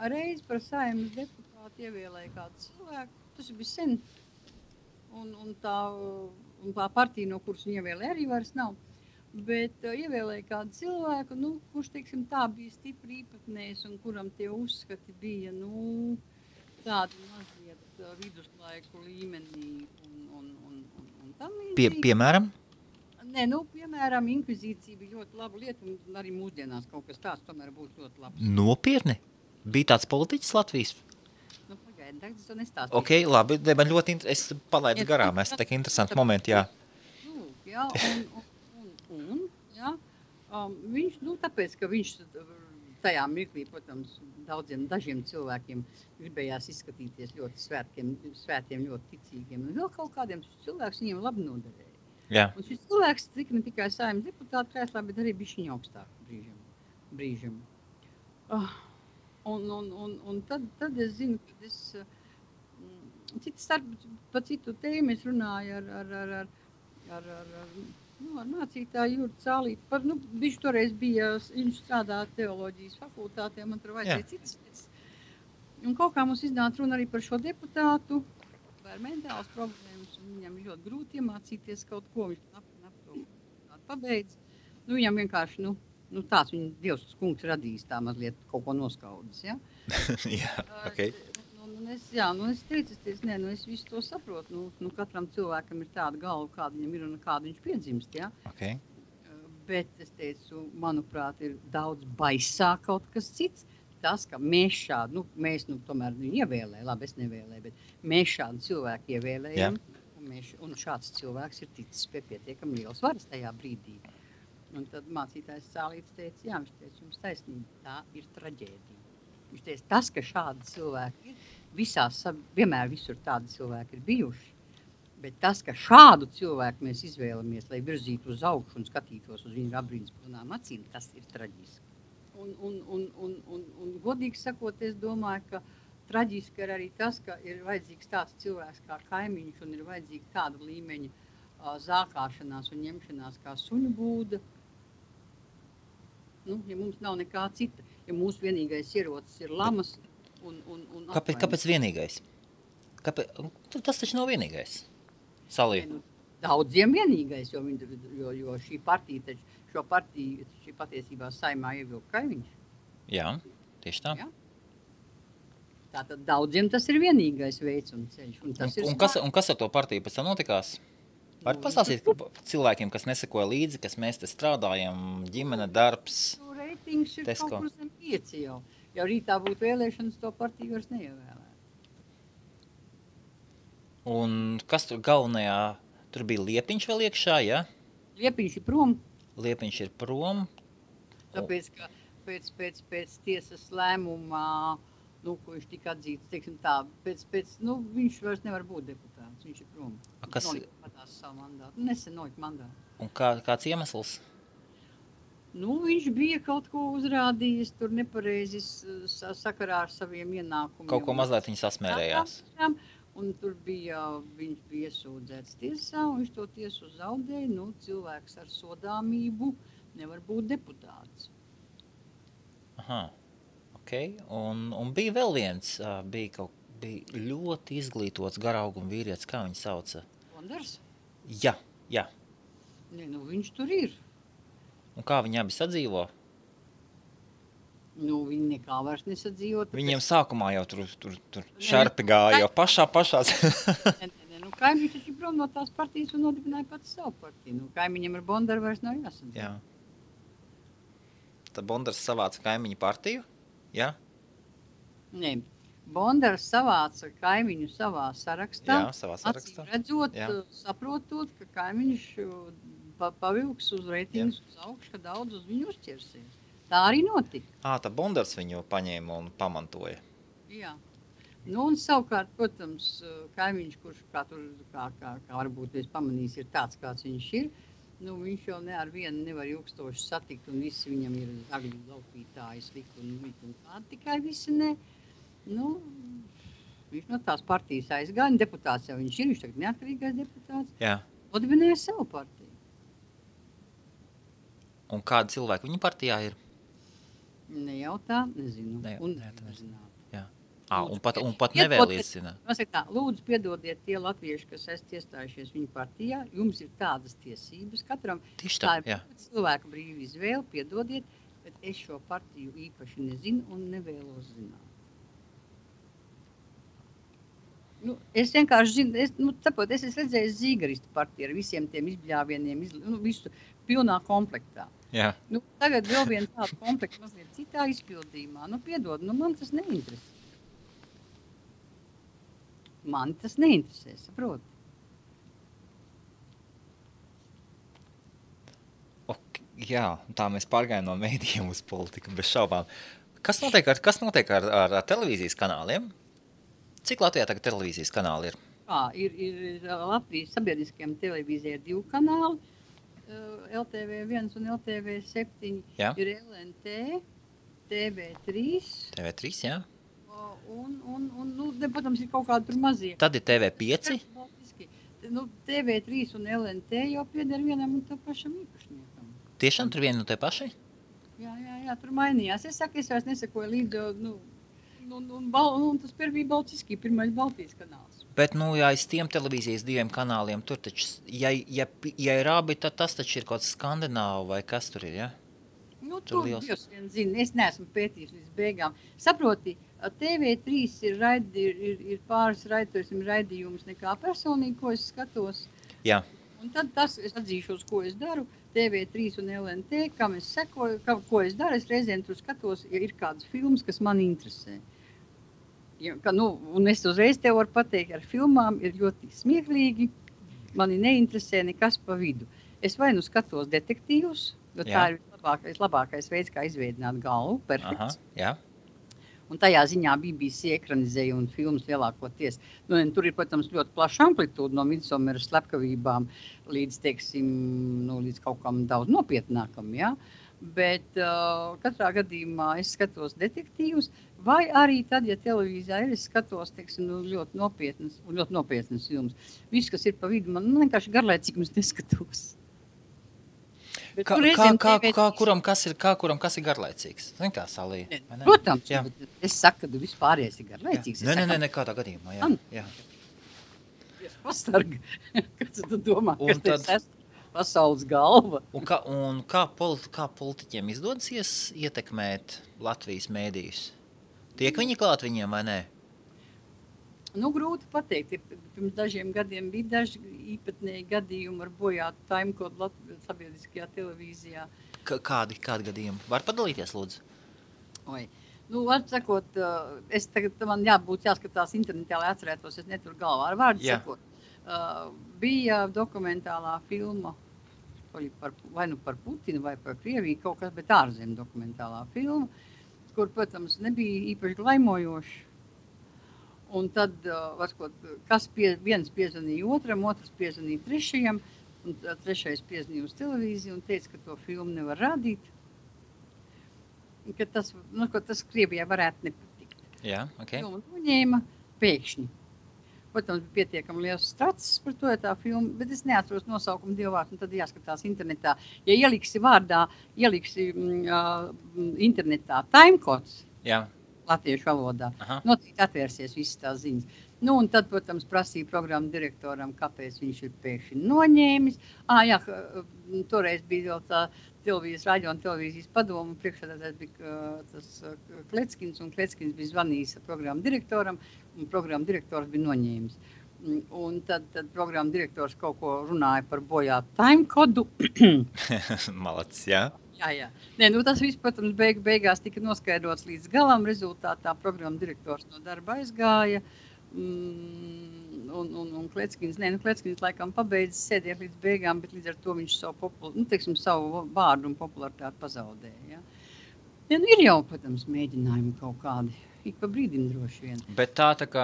reiz par Saeimas deputātu ievēlēja kādu cilvēku, tas bija sen. Un tā partija, no kuras viņa ievēlēja, arī vairs nav. Bet ievēlēja kādu cilvēku, kurš, teiksim, tā bija stipri īpatnējs un kuram tie uzskati bija, tādi mazliet viduslaiku līmenī un tam līdzīgi.
Piemēram?
Nē, piemēram, inkvizīcija bija ļoti laba lieta un arī mūsdienās kaut kas tāds tomēr būtu ļoti labs.
Nopietni? Bija tāds politiķis Latvijas?
Es to nestāstīju.
Ok, labi, man ļoti es palaidu garām, es tā kā interesanti momenti, jā.
Viņš, tāpēc, ka viņš tajā mirklī, protams, dažiem cilvēkiem gribējās izskatīties ļoti svētiem, ļoti ticīgiem, un vēl kaut kādiem cilvēks viņiem labi noderēja.
Jā.
Un šis cilvēks tika ne tikai Saeimas deputāta krēslā, bet arī bišķiņa augstāk brīžam. Un tad es zinu, ka par citu tēmu es runāju ar mācītāju Jurtu Cālīti. Viņš toreiz viņš strādā teoloģijas fakultātē, man tur vajadzēja citas lietas. Un kaut kā mums iznāca runa arī par šo deputātu, par mentālas problēmas, un viņam ļoti grūti iemācīties kaut ko, viņš pabeidz. Viņam vienkārši, tāds viņa Dievs kungs radījis tā mazliet kaut ko noskaudis, ja?
Jā, ok.
Es teicu, es visu to saprotu. Katram cilvēkam ir tāda galva, kāda viņam ir un kāda viņš piedzimst, ja?
Okay.
Bet es teicu, manuprāt, ir daudz baisāk kaut kas cits. tas, ka mēs šādu, mēs tomēr ievēlējām, labi, es nevēlēju, bet mēs šādu cilvēku ievēlējam, un šāds cilvēks ir ticis pie pietiekami liels varas tajā brīdī. Un tad mācītājs Cālīts teica, jā, viņš teica, jums taisnība, tā ir traģēdija. Viņš teica, tas, ka šādi cilvēki ir, vienmēr visur tādi cilvēki ir bijuši, bet tas, ka šādu cilvēku mēs izvēlamies, lai virzītu uz augšu un skatītos uz viņu apbrīnspilnām acīm, tas ir traģiski. Un godīgi sakot, es domāju, ka traģiski ir arī tas, ka ir vajadzīgs tāds cilvēks kā kaimiņš un ir vajadzīga tāda līmeņa zākāšanās un ņemšanās kā suņu būda. Ja mums nav nekā cita, ja mūsu vienīgais ierocis ir lamas un
Kāpēc vienīgais? Tas taču nav vienīgais. Salī.
Daudziem vienīgais, jo šī partija taču, šī patiesībā Saeimā ievilka kaimiņš.
Jā, tieši tā.
Ja? Tātad daudziem tas ir vienīgais veids un ceļš.
Un kas ar to partiju pēc tam notikās? Var pastāstīt cilvēkiem, kas nesekoja līdzi, kas mēs te strādājam, ģimene, darbs,
Reitings ir
Tesko.
Kaut kur zem 5 jau. Ja rītā būtu vēlēšanas, to partiju vairs neievēlē.
Un kas tur galvenajā, tur bija Liepiņš vēl iekšā, ja?
Liepiņš ir prom.
Liepiņš ir prom.
Tāpēc, ka pēc tiesas lēmumā, ko viņš tika atzīts, teiksim tā, viņš vairs nevar būt deputāts, viņš ir prom. Viņš savu mandātu, nesen nolika mandātu.
Un kāds iemesls?
Viņš bija kaut ko uzrādījis, tur nepareizi sakarā ar saviem ienākumiem.
Kaut ko mazliet viņi sasmērējās.
Un tur viņš bija iesūdzēts tiesā, un viņš to tiesu zaudēja. Cilvēks ar sodāmību nevar būt deputāts.
Aha, ok. Un bija vēl viens, bija ļoti izglītots garauguma vīrietis, kā viņu sauca?
Bondars?
Jā.
Viņš tur ir.
Un kā viņi abi sadzīvo?
Viņi nekā vairs nesadzīvo.
Viņiem sākumā jau tur šarpi gāja, jau pašās.
Kaimiņš taču prom no tās partijas un nodibināja pats savu partiju. Kaimiņam ar Bondaru vairs nav jāsadzīvo.
Jā. Tad Bondars savāca kaimiņu partiju? Jā?
Nē. Bondars savāca kaimiņu savā sarakstā.
Jā, savā sarakstā.
Redzot, saprotot, ka kaimiņš pavilks uz reitingus uz augšu, ka daudz uz viņu uzķersies. Tā arī notika.
Tā Bondars viņu paņēma un pamantoja. Jā.
Un savukārt, protams, kaimiņš, kurš kā varbūt es pamanījis, ir tāds, kāds viņš ir, viņš jau ne ar vienu nevar ilgstoši satikt, un visi viņam ir zagļu laupītāji, slikti un kādi, tikai visi ne. Viņš no tās partijas aizgāja, deputāts jau viņš ir, viņš tagad neatkarīgais deputāts.
Jā.
Odibināja savu partiju.
Un kādi cilvēki viņa partijā ir?
Nejautā, nezinu.
Nezinu. Jā. Un pat nevēliesina.
Lūdzu, piedodiet tie latvieši, kas esat iestājušies viņa partijā, jums ir tādas tiesības. Katram tā ir cilvēka brīva izvēle, piedodiet, bet es šo partiju īpaši nezinu un nevēlos zināt. Es vienkārši zinu, es esmu redzējis Zīgaristu partiju ar visiem tiem izbļāvieniem, visu pilnā komplektā.
Jā.
Tagad vēl viena tāda komplekta mazliet citā izpildījumā. Piedod, man tas neinteresē. Man tas neinteresē, saproti.
Jā, tā mēs pārgājām no mēdījiem uz politiku, bez šaubām. Kas notiek ar televīzijas kanāliem? Cik Latvijā tagad televīzijas kanāli ir?
Ir Latvijas sabiedriskajām televīzijai 2 kanāli. LTV1 un LTV7 ir LNT, TV3.
TV3, jā.
Protams, ir kaut kādi tur mazie.
Tad ir TV5.
TV3 un LNT jau pieder vienam un tā pašam īpašniekam.
Tiešām tur viena un te paši?
Jā, tur mainījās. Es saku, es vairs nesakoju līdzi, un tas bija Baltiski, pirmais Baltijas kanāls.
Bet, aiz tiem televīzijas 2 kanāliem, tur taču, ja ir abi, tad tas taču ir kaut kāds Skandināvu vai kas tur ir, ja?
Tur Dievs vien zina, es neesmu pētījis līdz beigām. Saproti, TV3 ir pāris raidījums nekā personīgi, ko es skatos.
Jā.
Un tad tas, es atzīšos, ko es daru, TV3 un LNT, kam es sekoju, ko es daru, es reizēm tur skatos, ja ir kādas filmas, kas man interesē. Ja, un es uzreiz tev varu pateikt, ar filmām ir ļoti smieklīgi, mani neinteresē nekas pa vidu. Es vai nu skatos detektīvus, jo tā ir labākais veids, kā izveidināt galvu, perfekts.
Aha, jā.
Un tajā ziņā BBC ekranizēja un filmas lielākoties. Tur ir, protams, ļoti plaša amplitūda no Midsomeras slepkavībām līdz, teiksim, līdz kaut kam daudz nopietnākam, ja? Bet katrā gadījumā es skatos detektīvus, vai arī tad, ja televīzijā ir, es skatos, teiksim, ļoti nopietnas filmas. Viss, kas ir pa vidu, man vienkārši garlaicīgums neskatos.
Kuram kas ir garlaicīgs? Zin kā, Salija?
Protams, es saku, ka vispārējais ir garlaicīgs.
Nē, kādā gadījumā, jā.
Es pastargu, kad tu domā, ka tas esmu pasaules galva.
Un kā politiķiem izdodas ietekmēt Latvijas mēdījus? Tiek viņi klāt viņiem vai nē?
Grūti pateikt. Pirms dažiem gadiem bija daži īpatnēji gadījumi ar bojātu timekodu sabiedriskajā televīzijā.
Kādi gadījumi? Var padalīties, lūdzu?
Var sakot, man jāskatās internetā, lai atcerētos, es neturu galvā ar vārdu sakot. Bija dokumentālā filma, vai nu par Putinu vai par Krieviju, kaut kas, bet ārzem dokumentālā filma, kur, protams, nebija īpaši glaimojoši. Un tad, viens piezvanīja otram, otrs piezvanīja trešajam, un trešais piezvanīja uz televīziju un teica, ka to filmu nevar rādīt. Ka tas Krievijai varētu nepatikt.
Jā, ok.
Un noņēma pēkšņi. Protams, bija pietiekami liels strats par to, tā filma, bet es neatceros nosaukumu dievvārdu, un tad jāskatās internetā. Ja ieliksi internetā timecodes, latviešu valodā, noteikti atvērsies visas tās ziņas. Un tad, protams, prasīja programmu direktoram, kāpēc viņš ir pēkšņi noņēmis. Toreiz bija vēl tā radio un televīzijas padoma, priekšsēdētājs bija tas Kleckins, un Kleckins bija zvanījis programmu direktoram, un programmu direktors bija noņēmis. Un tad programmu direktors kaut ko runāja par bojātu timekodu.
Malacis, jā.
Jā. Tas viss, protams, beigās tika noskaidrots līdz galam. Rezultātā programma direktors no darba aizgāja. Un Kleckins laikam pabeidzis sēdēt līdz beigām, bet līdz ar to viņš savu vārdu un popularitāti pazaudēja. Ja? Ir jau, protams, mēģinājumi kaut kādi. Ik pa brīdim droši vien.
Bet tā kā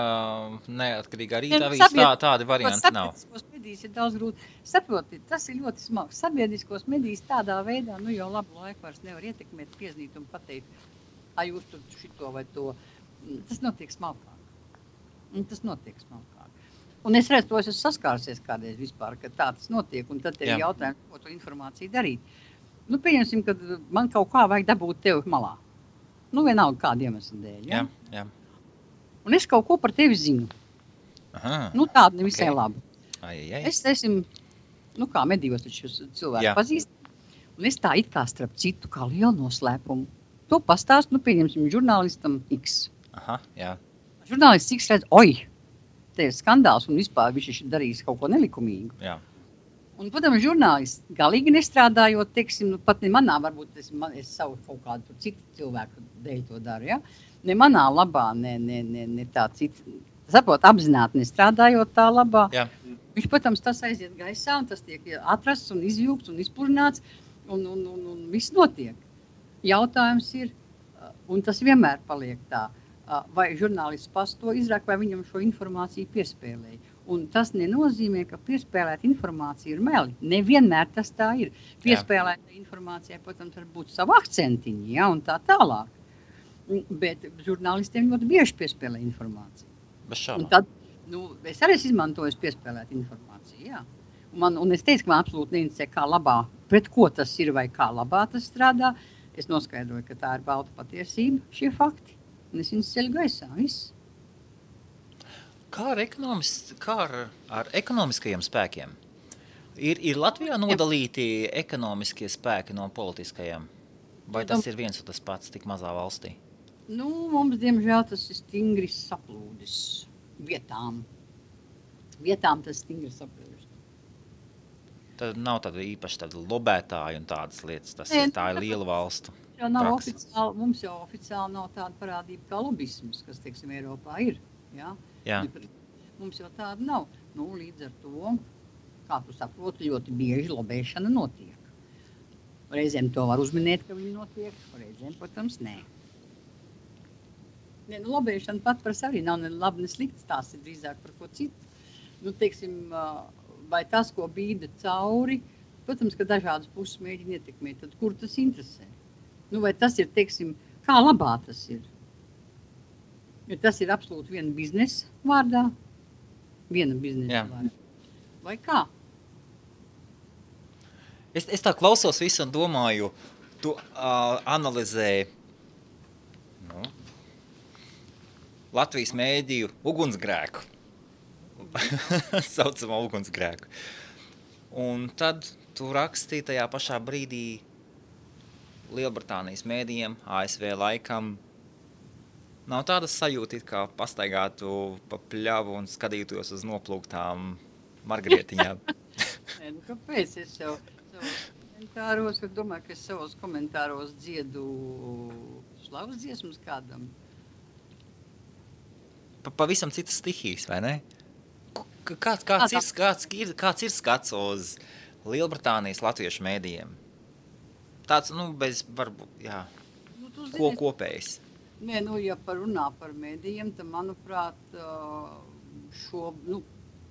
neatkarīgā rīta avīzes tādi varianti nav.
Sabiedriskos medijas ir daudz grūti. Saprotiet, tas ir ļoti smags. Sabiedriskos medijas tādā veidā, jau labu laiku vairs nevar ietekmēt, pieznīt un pateikt, jūs tur šito vai to. Tas notiek smalkāk. Un es redzu, to es esmu saskārsies kādreiz vispār, ka tā tas notiek, un tad ir jautājums, ko to informāciju darīt. Pieņemsim, ka man kaut kā vajag dabūt tevi malā. Vienalga kādu iemeslu dēļ. Ja?
Jā.
Un es kaut ko par tevi zinu.
Aha,
tādu nevisai labu.
Es
esmu, kā medījos taču cilvēku pazīst, un es tā it kā starp citu kā lielu noslēpumu. To pastāstu, pieņemsim, žurnālistam X.
Aha, jā.
Žurnālists X redz, te ir skandāls un vispār viņš ir darījis kaut ko nelikumīgu.
Jā.
Un, protams, žurnālists galīgi nestrādājot, teiksim, pat ne manā, varbūt es savu kaut kādu citu cilvēku dēļ to daru, ja? Ne manā labā, ne tā cita, apzināti nestrādājot tā labā.
Jā.
Viņš, protams, tas aiziet gaisā, un tas tiek atrasts un izjūgts un izpludināts, un viss notiek. Jautājums ir, un tas vienmēr paliek tā, vai žurnālists pats to izrāk, vai viņam šo informāciju piespēlēja. Un tas nenozīmē, ka piespēlēt informāciju ir meli. Nevienmēr tas tā ir. Piespēlēta informācijai, protams, var būt savu akcentiņu, un tā tālāk. Bet žurnālistiem ļoti bieži piespēlē informāciju.
Bez šaubām.
Un tad, es arī izmantoju piespēlēt informāciju, jā. Un es teicu, ka man absolūti neinteresē, kā labā, pret ko tas ir vai kā labā tas strādā. Es noskaidroju, ka tā ir balta patiesība, šie fakti. Un es viņus ceļu gaisā, viss.
Kā ar ekonomiskajiem spēkiem? Ir Latvijā nodalīti ekonomiskie spēki no politiskajiem? Vai tas ir viens un tas pats tik mazā valstī?
Mums, diemžēl, tas ir stingri saplūdis vietām. Vietām tas stingri saplūdis.
Tad nav tāda īpaši tāda lobētāja un tādas lietas. Tā ir liela valstu.
Mums jau oficiāli nav tāda parādība kā lobisms, kas, teiksim, Eiropā ir. Ja?
Jā.
Mums jau tāda nav. Nu, līdz ar to, kā tu saproti, ļoti bieži lobēšana notiek. Reizēm to var uzminēt, ka viņi notiek, reizēm, protams, nē. Ne, nu, lobēšana pat par sevi nav ne labi, ne slikts, tās ir drīzāk par ko citu. Nu, teiksim, vai tas, ko bīda cauri, protams, ka dažādas puses mēģina ietekmēt, tad kur tas interesē? Nu, vai tas ir, teiksim, kā labā tas ir? Jo tas ir absolūti viena biznesa vārdā, vārdā. Vai kā?
Es tā klausos visu un domāju, tu analizē Latvijas mēdīju ugunsgrēku. Saucamā ugunsgrēku. Un tad tu rakstīji tajā pašā brīdī Lielbritānijas mēdījiem, ASV laikam. Nav tādas sajūta, kā pastaigātu pa pļavu un skatītos uz noplūktām margarietiņām.
Nē, nu kāpēc es savos komentāros, es domāju, ka es savos komentāros dziedu slavas dziesmas kādam.
Pavisam citas stihijas, vai ne? Kāds ir skats uz Lielbritānijas latviešu mēdījiem? Tāds, bez varbūt, jā, ko kopējs?
Nē, ja runā par mēdījiem, tad, manuprāt,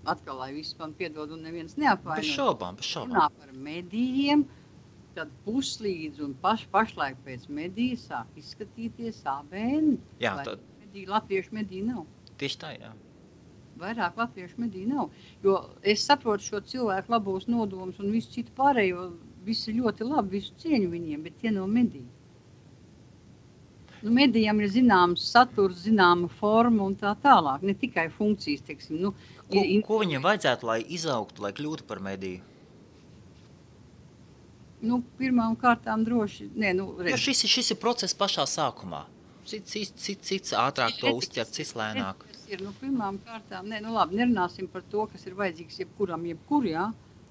atkal, lai viss man piedod un neviens neapvaino.
Bez šaubām.
Runā par mēdījiem, tad puslīdz un pašlaik pēc mēdīja sāk izskatīties ABN.
Jā,
latviešu mediju nav.
Tieši tā, jā.
Vairāk latviešu mediju nav. Jo es saprotu šo cilvēku labos nodomus un visu citu pārējo, visi ļoti labi, visu cieņu viņiem, bet tie nav mediji. Medijam ir zināms saturs, zināma forma un tā tālāk, ne tikai funkcijas, teiksim.
Ko viņiem vajadzētu, lai izaugtu, lai kļūtu par mediju?
Pirmām kārtām droši.
Jo šis ir process pašā sākumā. Cits ātrāk to uzķert, cits lēnāk.
Pirmām kārtām, labi, nerunāsim par to, kas ir vajadzīgs jebkuram, jā.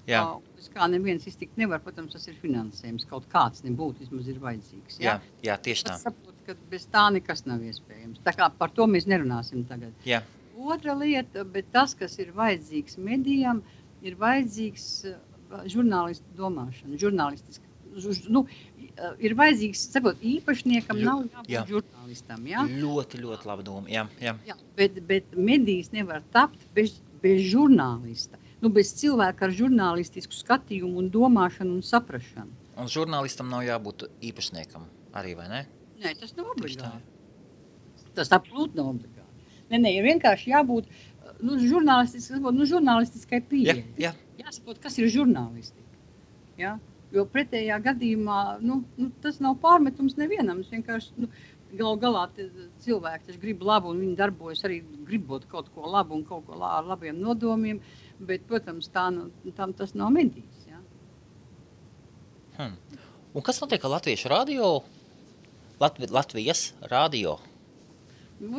Jā.
Bez kā neviens iztikt nevar, protams, tas ir finansējums, kaut kāds nebūtu, vismaz ir vajadzīgs.
Jā, tieši tā.
Es saprotu, ka bez tā nekas nav iespējams. Tā kā par to mēs nerunāsim tagad.
Jā.
Otra lieta, bet tas, kas ir vajadzīgs medijam, ir vajadzīgs žurnālistu domāšana, žurnālistiski. Ir vajadzīgs, saprot, īpašniekam nav jābūt žurnālistam, jā?
Ļoti, ļoti laba doma, jā.
Bet medijas nevar tapt bez žurnālista. Bez cilvēka ar žurnālistisku skatījumu un domāšanu un saprašanu.
Un žurnālistam nav jābūt īpašniekam arī, vai ne?
Nē, tas nav obligāti. Tas absolūti nav obligāti. Nē, ir vienkārši jābūt žurnālistiskai pieeja. Jāsaprot, kas ir žurnālistika. Ja? Jo pretējā gadījumā, tas nav pārmetums nevienam. Es vienkārši, galā cilvēki taču grib labu un viņi darbojas arī gribot kaut ko labu un kaut ko ar labiem nodomiem. Bet, protams, tas nav medijas. Ja?
Un kas notiek ar latviešu radio? Latvijas radio?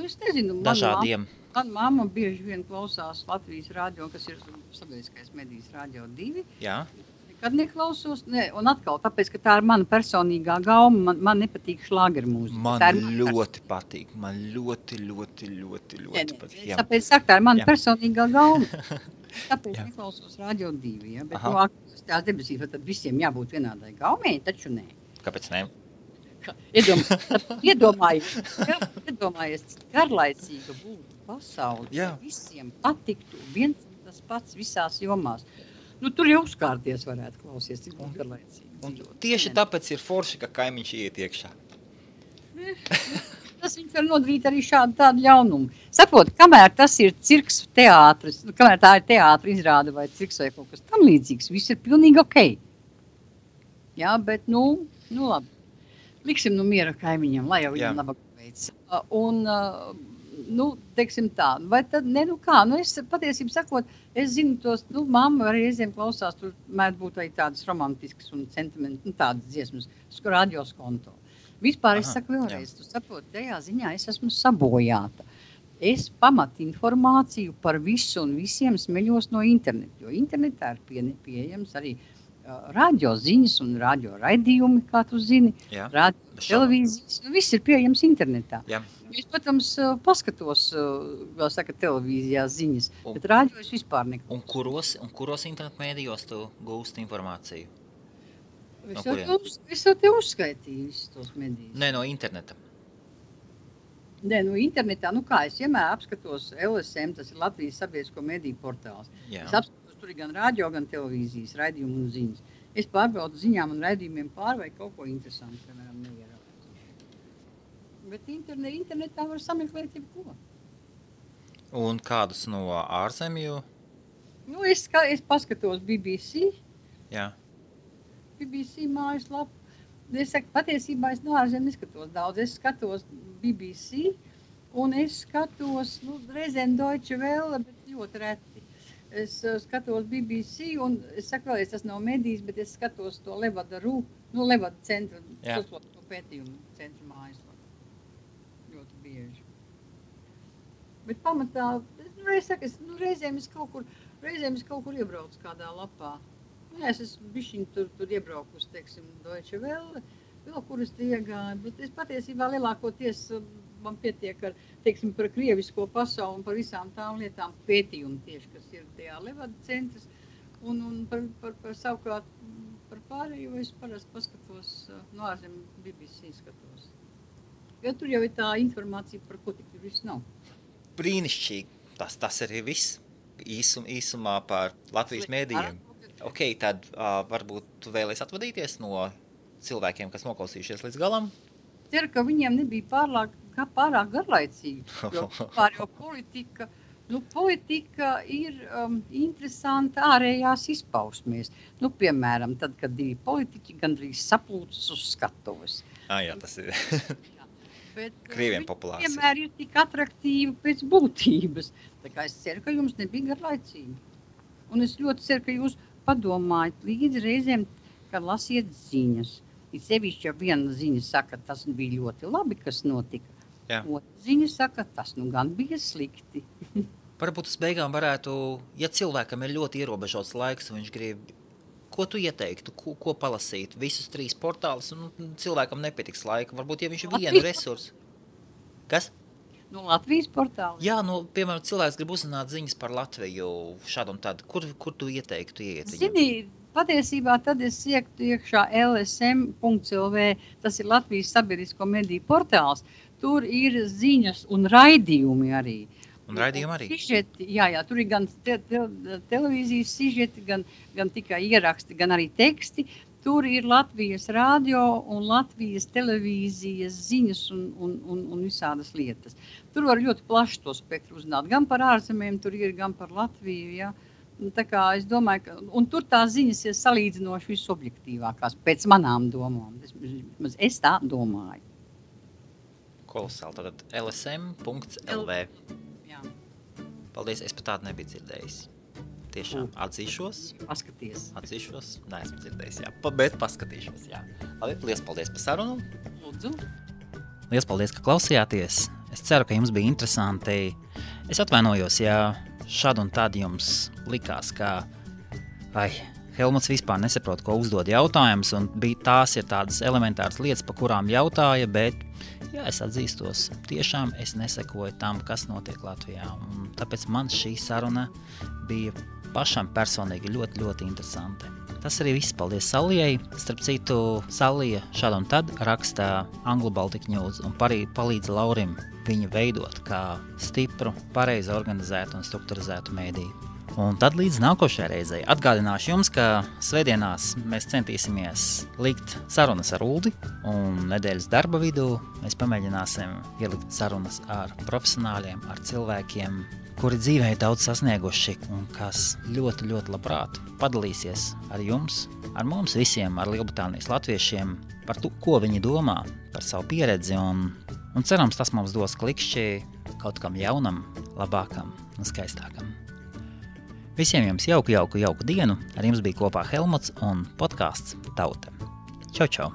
Es nezinu.
Dažādiem.
Man mamma bieži vien klausās Latvijas radio, kas ir sabiedriskais medijas radio 2.
Jā.
Nekad neklausos. Un atkal, tāpēc, ka tā ir mana personīgā gauma, man nepatīk šlāgermūzika.
Man ļoti patīk. Man ļoti patīk.
Tāpēc saka, tā ir mana personīgā gauma. Tāpēc neklausos radio 2, ja? Bet tās debesīs, tad visiem jābūt vienādai gaumei, taču nē.
Kāpēc nē?
Iedomājies, garlaicīga būtu pasauli, visiem patiktu viens tas pats visās jomās. Tur jau uzkārties varētu klausies, cik būtu garlaicīgi.
Tieši tāpēc ir forši, ka kaimiņš iet iekšā.
Tas viņš var nodarīt arī tādu ļaunumu. Saprot, kamēr tas ir cirks teātris, kamēr tā ir teātra izrāde vai cirks vai kaut kas tam līdzīgs, viss ir pilnīgi okei. Jā, bet, labi. Liksim miera kaimiņam, lai jau viņam labāk veids. Un, teiksim tā, vai tad, es patiesībā sakot, es zinu tos, mamma arī reizēm klausās, tur mēdz būt arī tādas romantiskas un sentimentu, tādas dziesmas, radios konto. Vispār es saku vēlreiz, tu saproti, tajā ziņā es esmu sabojāta. es pamatu informāciju par visu un visiem smeļos no interneta, jo internetā ir pieejams arī radio ziņas un radio raidījumi, kā tu zini, radio televīzijas, viss ir pieejams internetā.
Jā.
Es, protams, paskatos, vēl saka, televīzijā ziņas, bet radio es vispār neko.
Un kuros internetu mēdījos tu gūsti informāciju?
Es jau te uzskaitīju visus tos medijus.
Nē, no interneta.
Nē, no internetā, kā es vienmēr apskatos LSM, tas ir Latvijas sabiedrisko mediju portāls.
Jā.
Es apskatos tur gan radio, gan televīzijas raidījumu un ziņas. Es pārbaudu ziņām un raidījumiem vai kaut ko interesantu, piemēram, neieraudzīt. Bet internetā var sameklēt jebko.
Un kādus no ārzemju?
Es paskatos BBC.
Jā.
BBC mājaslapu. Es saku, patiesībā es no ārzemju neskatos daudz. Es skatos BBC un es skatos, reizēm Deutsche Welle, bet ļoti reti. Es skatos BBC un es saku vēlreiz, tas nav medijas, bet es skatos to Levada Levada centra, to pētījumu centra mājaslapu. Ļoti bieži. Bet pamatā, reizēm es kaut kur iebraucu kādā lapā. Es esmu bišķiņ tur iebraukusi, teiksim, Deutsche Welle, vēl kur es te iegāju, bet es patiesībā lielākoties man pietiek ar, teiksim, par krievisko pasauli un par visām tām lietām pētījumu tieši, kas ir tajā Levada centras, un par savukārt par pārējo es parasti paskatos, no ārzemju BBC skatos. Jo tur jau ir tā informācija, par ko tik tur viss nav.
Brīnišķīgi, tas arī viss īsumā par Latvijas mēdījiem. Ok, tad varbūt tu vēlies atvadīties no cilvēkiem, kas noklausījušies līdz galam?
Ceru, ka viņiem nebija pārāk garlaicīgi, jo pār jau politika ir interesanta ārējās izpausmēs. Piemēram, tad, kad divi politiķi gandrīz saplūcas uz skatuves.
Jā, tas ir Krieviem populārs.
Vienmēr ir tik atraktīvi pēc būtības. Tā kā es ceru, ka jums nebija garlaicīgi. Un es ļoti ceru, ka jūs padomājat līdz reizēm, kad lasiet ziņas. Ir sevišķi, ja viena ziņa saka, tas bija ļoti labi, kas notika.
Jā.
Otra ziņa saka, tas gan bija slikti.
Varbūt uz beigām varētu, ja cilvēkam ir ļoti ierobežots laiks, un viņš grib, ko tu ieteiktu, ko palasīt, visus 3 portālus, un cilvēkam nepietiks laika. Varbūt, ja viņš ir vienu resursu. Kas?
No Latvijas portāla?
Jā, piemēram, cilvēks grib uzzināt ziņas par Latviju šādu un tādu. Kur tu ieteiktu iet viņam?
Zini, patiesībā tad es iektu iekšā lsm.lv, tas ir Latvijas sabiedrisko mediju portāls. Tur ir ziņas un raidījumi arī.
Un raidījumi arī?
Sižeti, jā, tur ir gan televīzijas sižeti, gan tikai ieraksti, gan arī teksti. Tur ir Latvijas radio un Latvijas televīzijas ziņas un visādas lietas. Tur var ļoti plaši to spektru uzzināt. Gan par ārzemēm tur ir, gan par Latviju. Ja? Tā kā es domāju, ka un tur tās ziņas ir salīdzinoši visobjektīvākās pēc manām domām. Es tā domāju.
Kolosāli. Tātad lsm.lv.
Jā.
Paldies, es pat tādu nebiju dzirdējis. Tiešām atzīšos.
Paskaties.
Atzīšos. Neesmu dzirdējis, jā. Bet paskatīšos, jā. Labi, liels paldies par sarunu.
Lūdzu.
Liels paldies, ka klausījāties. Es ceru, ka jums bija interesanti. Es atvainojos, ja šad un tad jums likās, ka Helmuts vispār nesaprot, ko uzdod jautājums, un tās ir tādas elementāras lietas, pa kurām jautāja, bet jā, es atzīstos, tiešām es nesekoju tam, kas notiek Latvijā. Un tāpēc man šī saruna bija pašam personīgi ļoti, ļoti interesanti. Tas arī viss. Paldies Salijai. Starp citu, Salija šad un tad rakstā Anglo Baltic News un palīdz Laurim viņu veidot kā stipru, pareizi organizētu un strukturizētu mēdīju. Un tad līdz nākošajai reizei atgādināšu jums, ka svētdienās mēs centīsimies likt sarunas ar Uldi, un nedēļas darba vidū mēs pamēģināsim ielikt sarunas ar profesionāļiem, ar cilvēkiem, kuri dzīvē ir daudz sasnieguši un kas ļoti, ļoti labprāt padalīsies ar jums, ar mums visiem, ar Lielbritānijas latviešiem, par to, ko viņi domā, par savu pieredzi, un cerams, tas mums dos klikšķi kaut kam jaunam, labākam un skaistākam. Visiem jums jauku dienu, ar jums bija kopā Helmuts un podcasts Tauta. Čau, čau!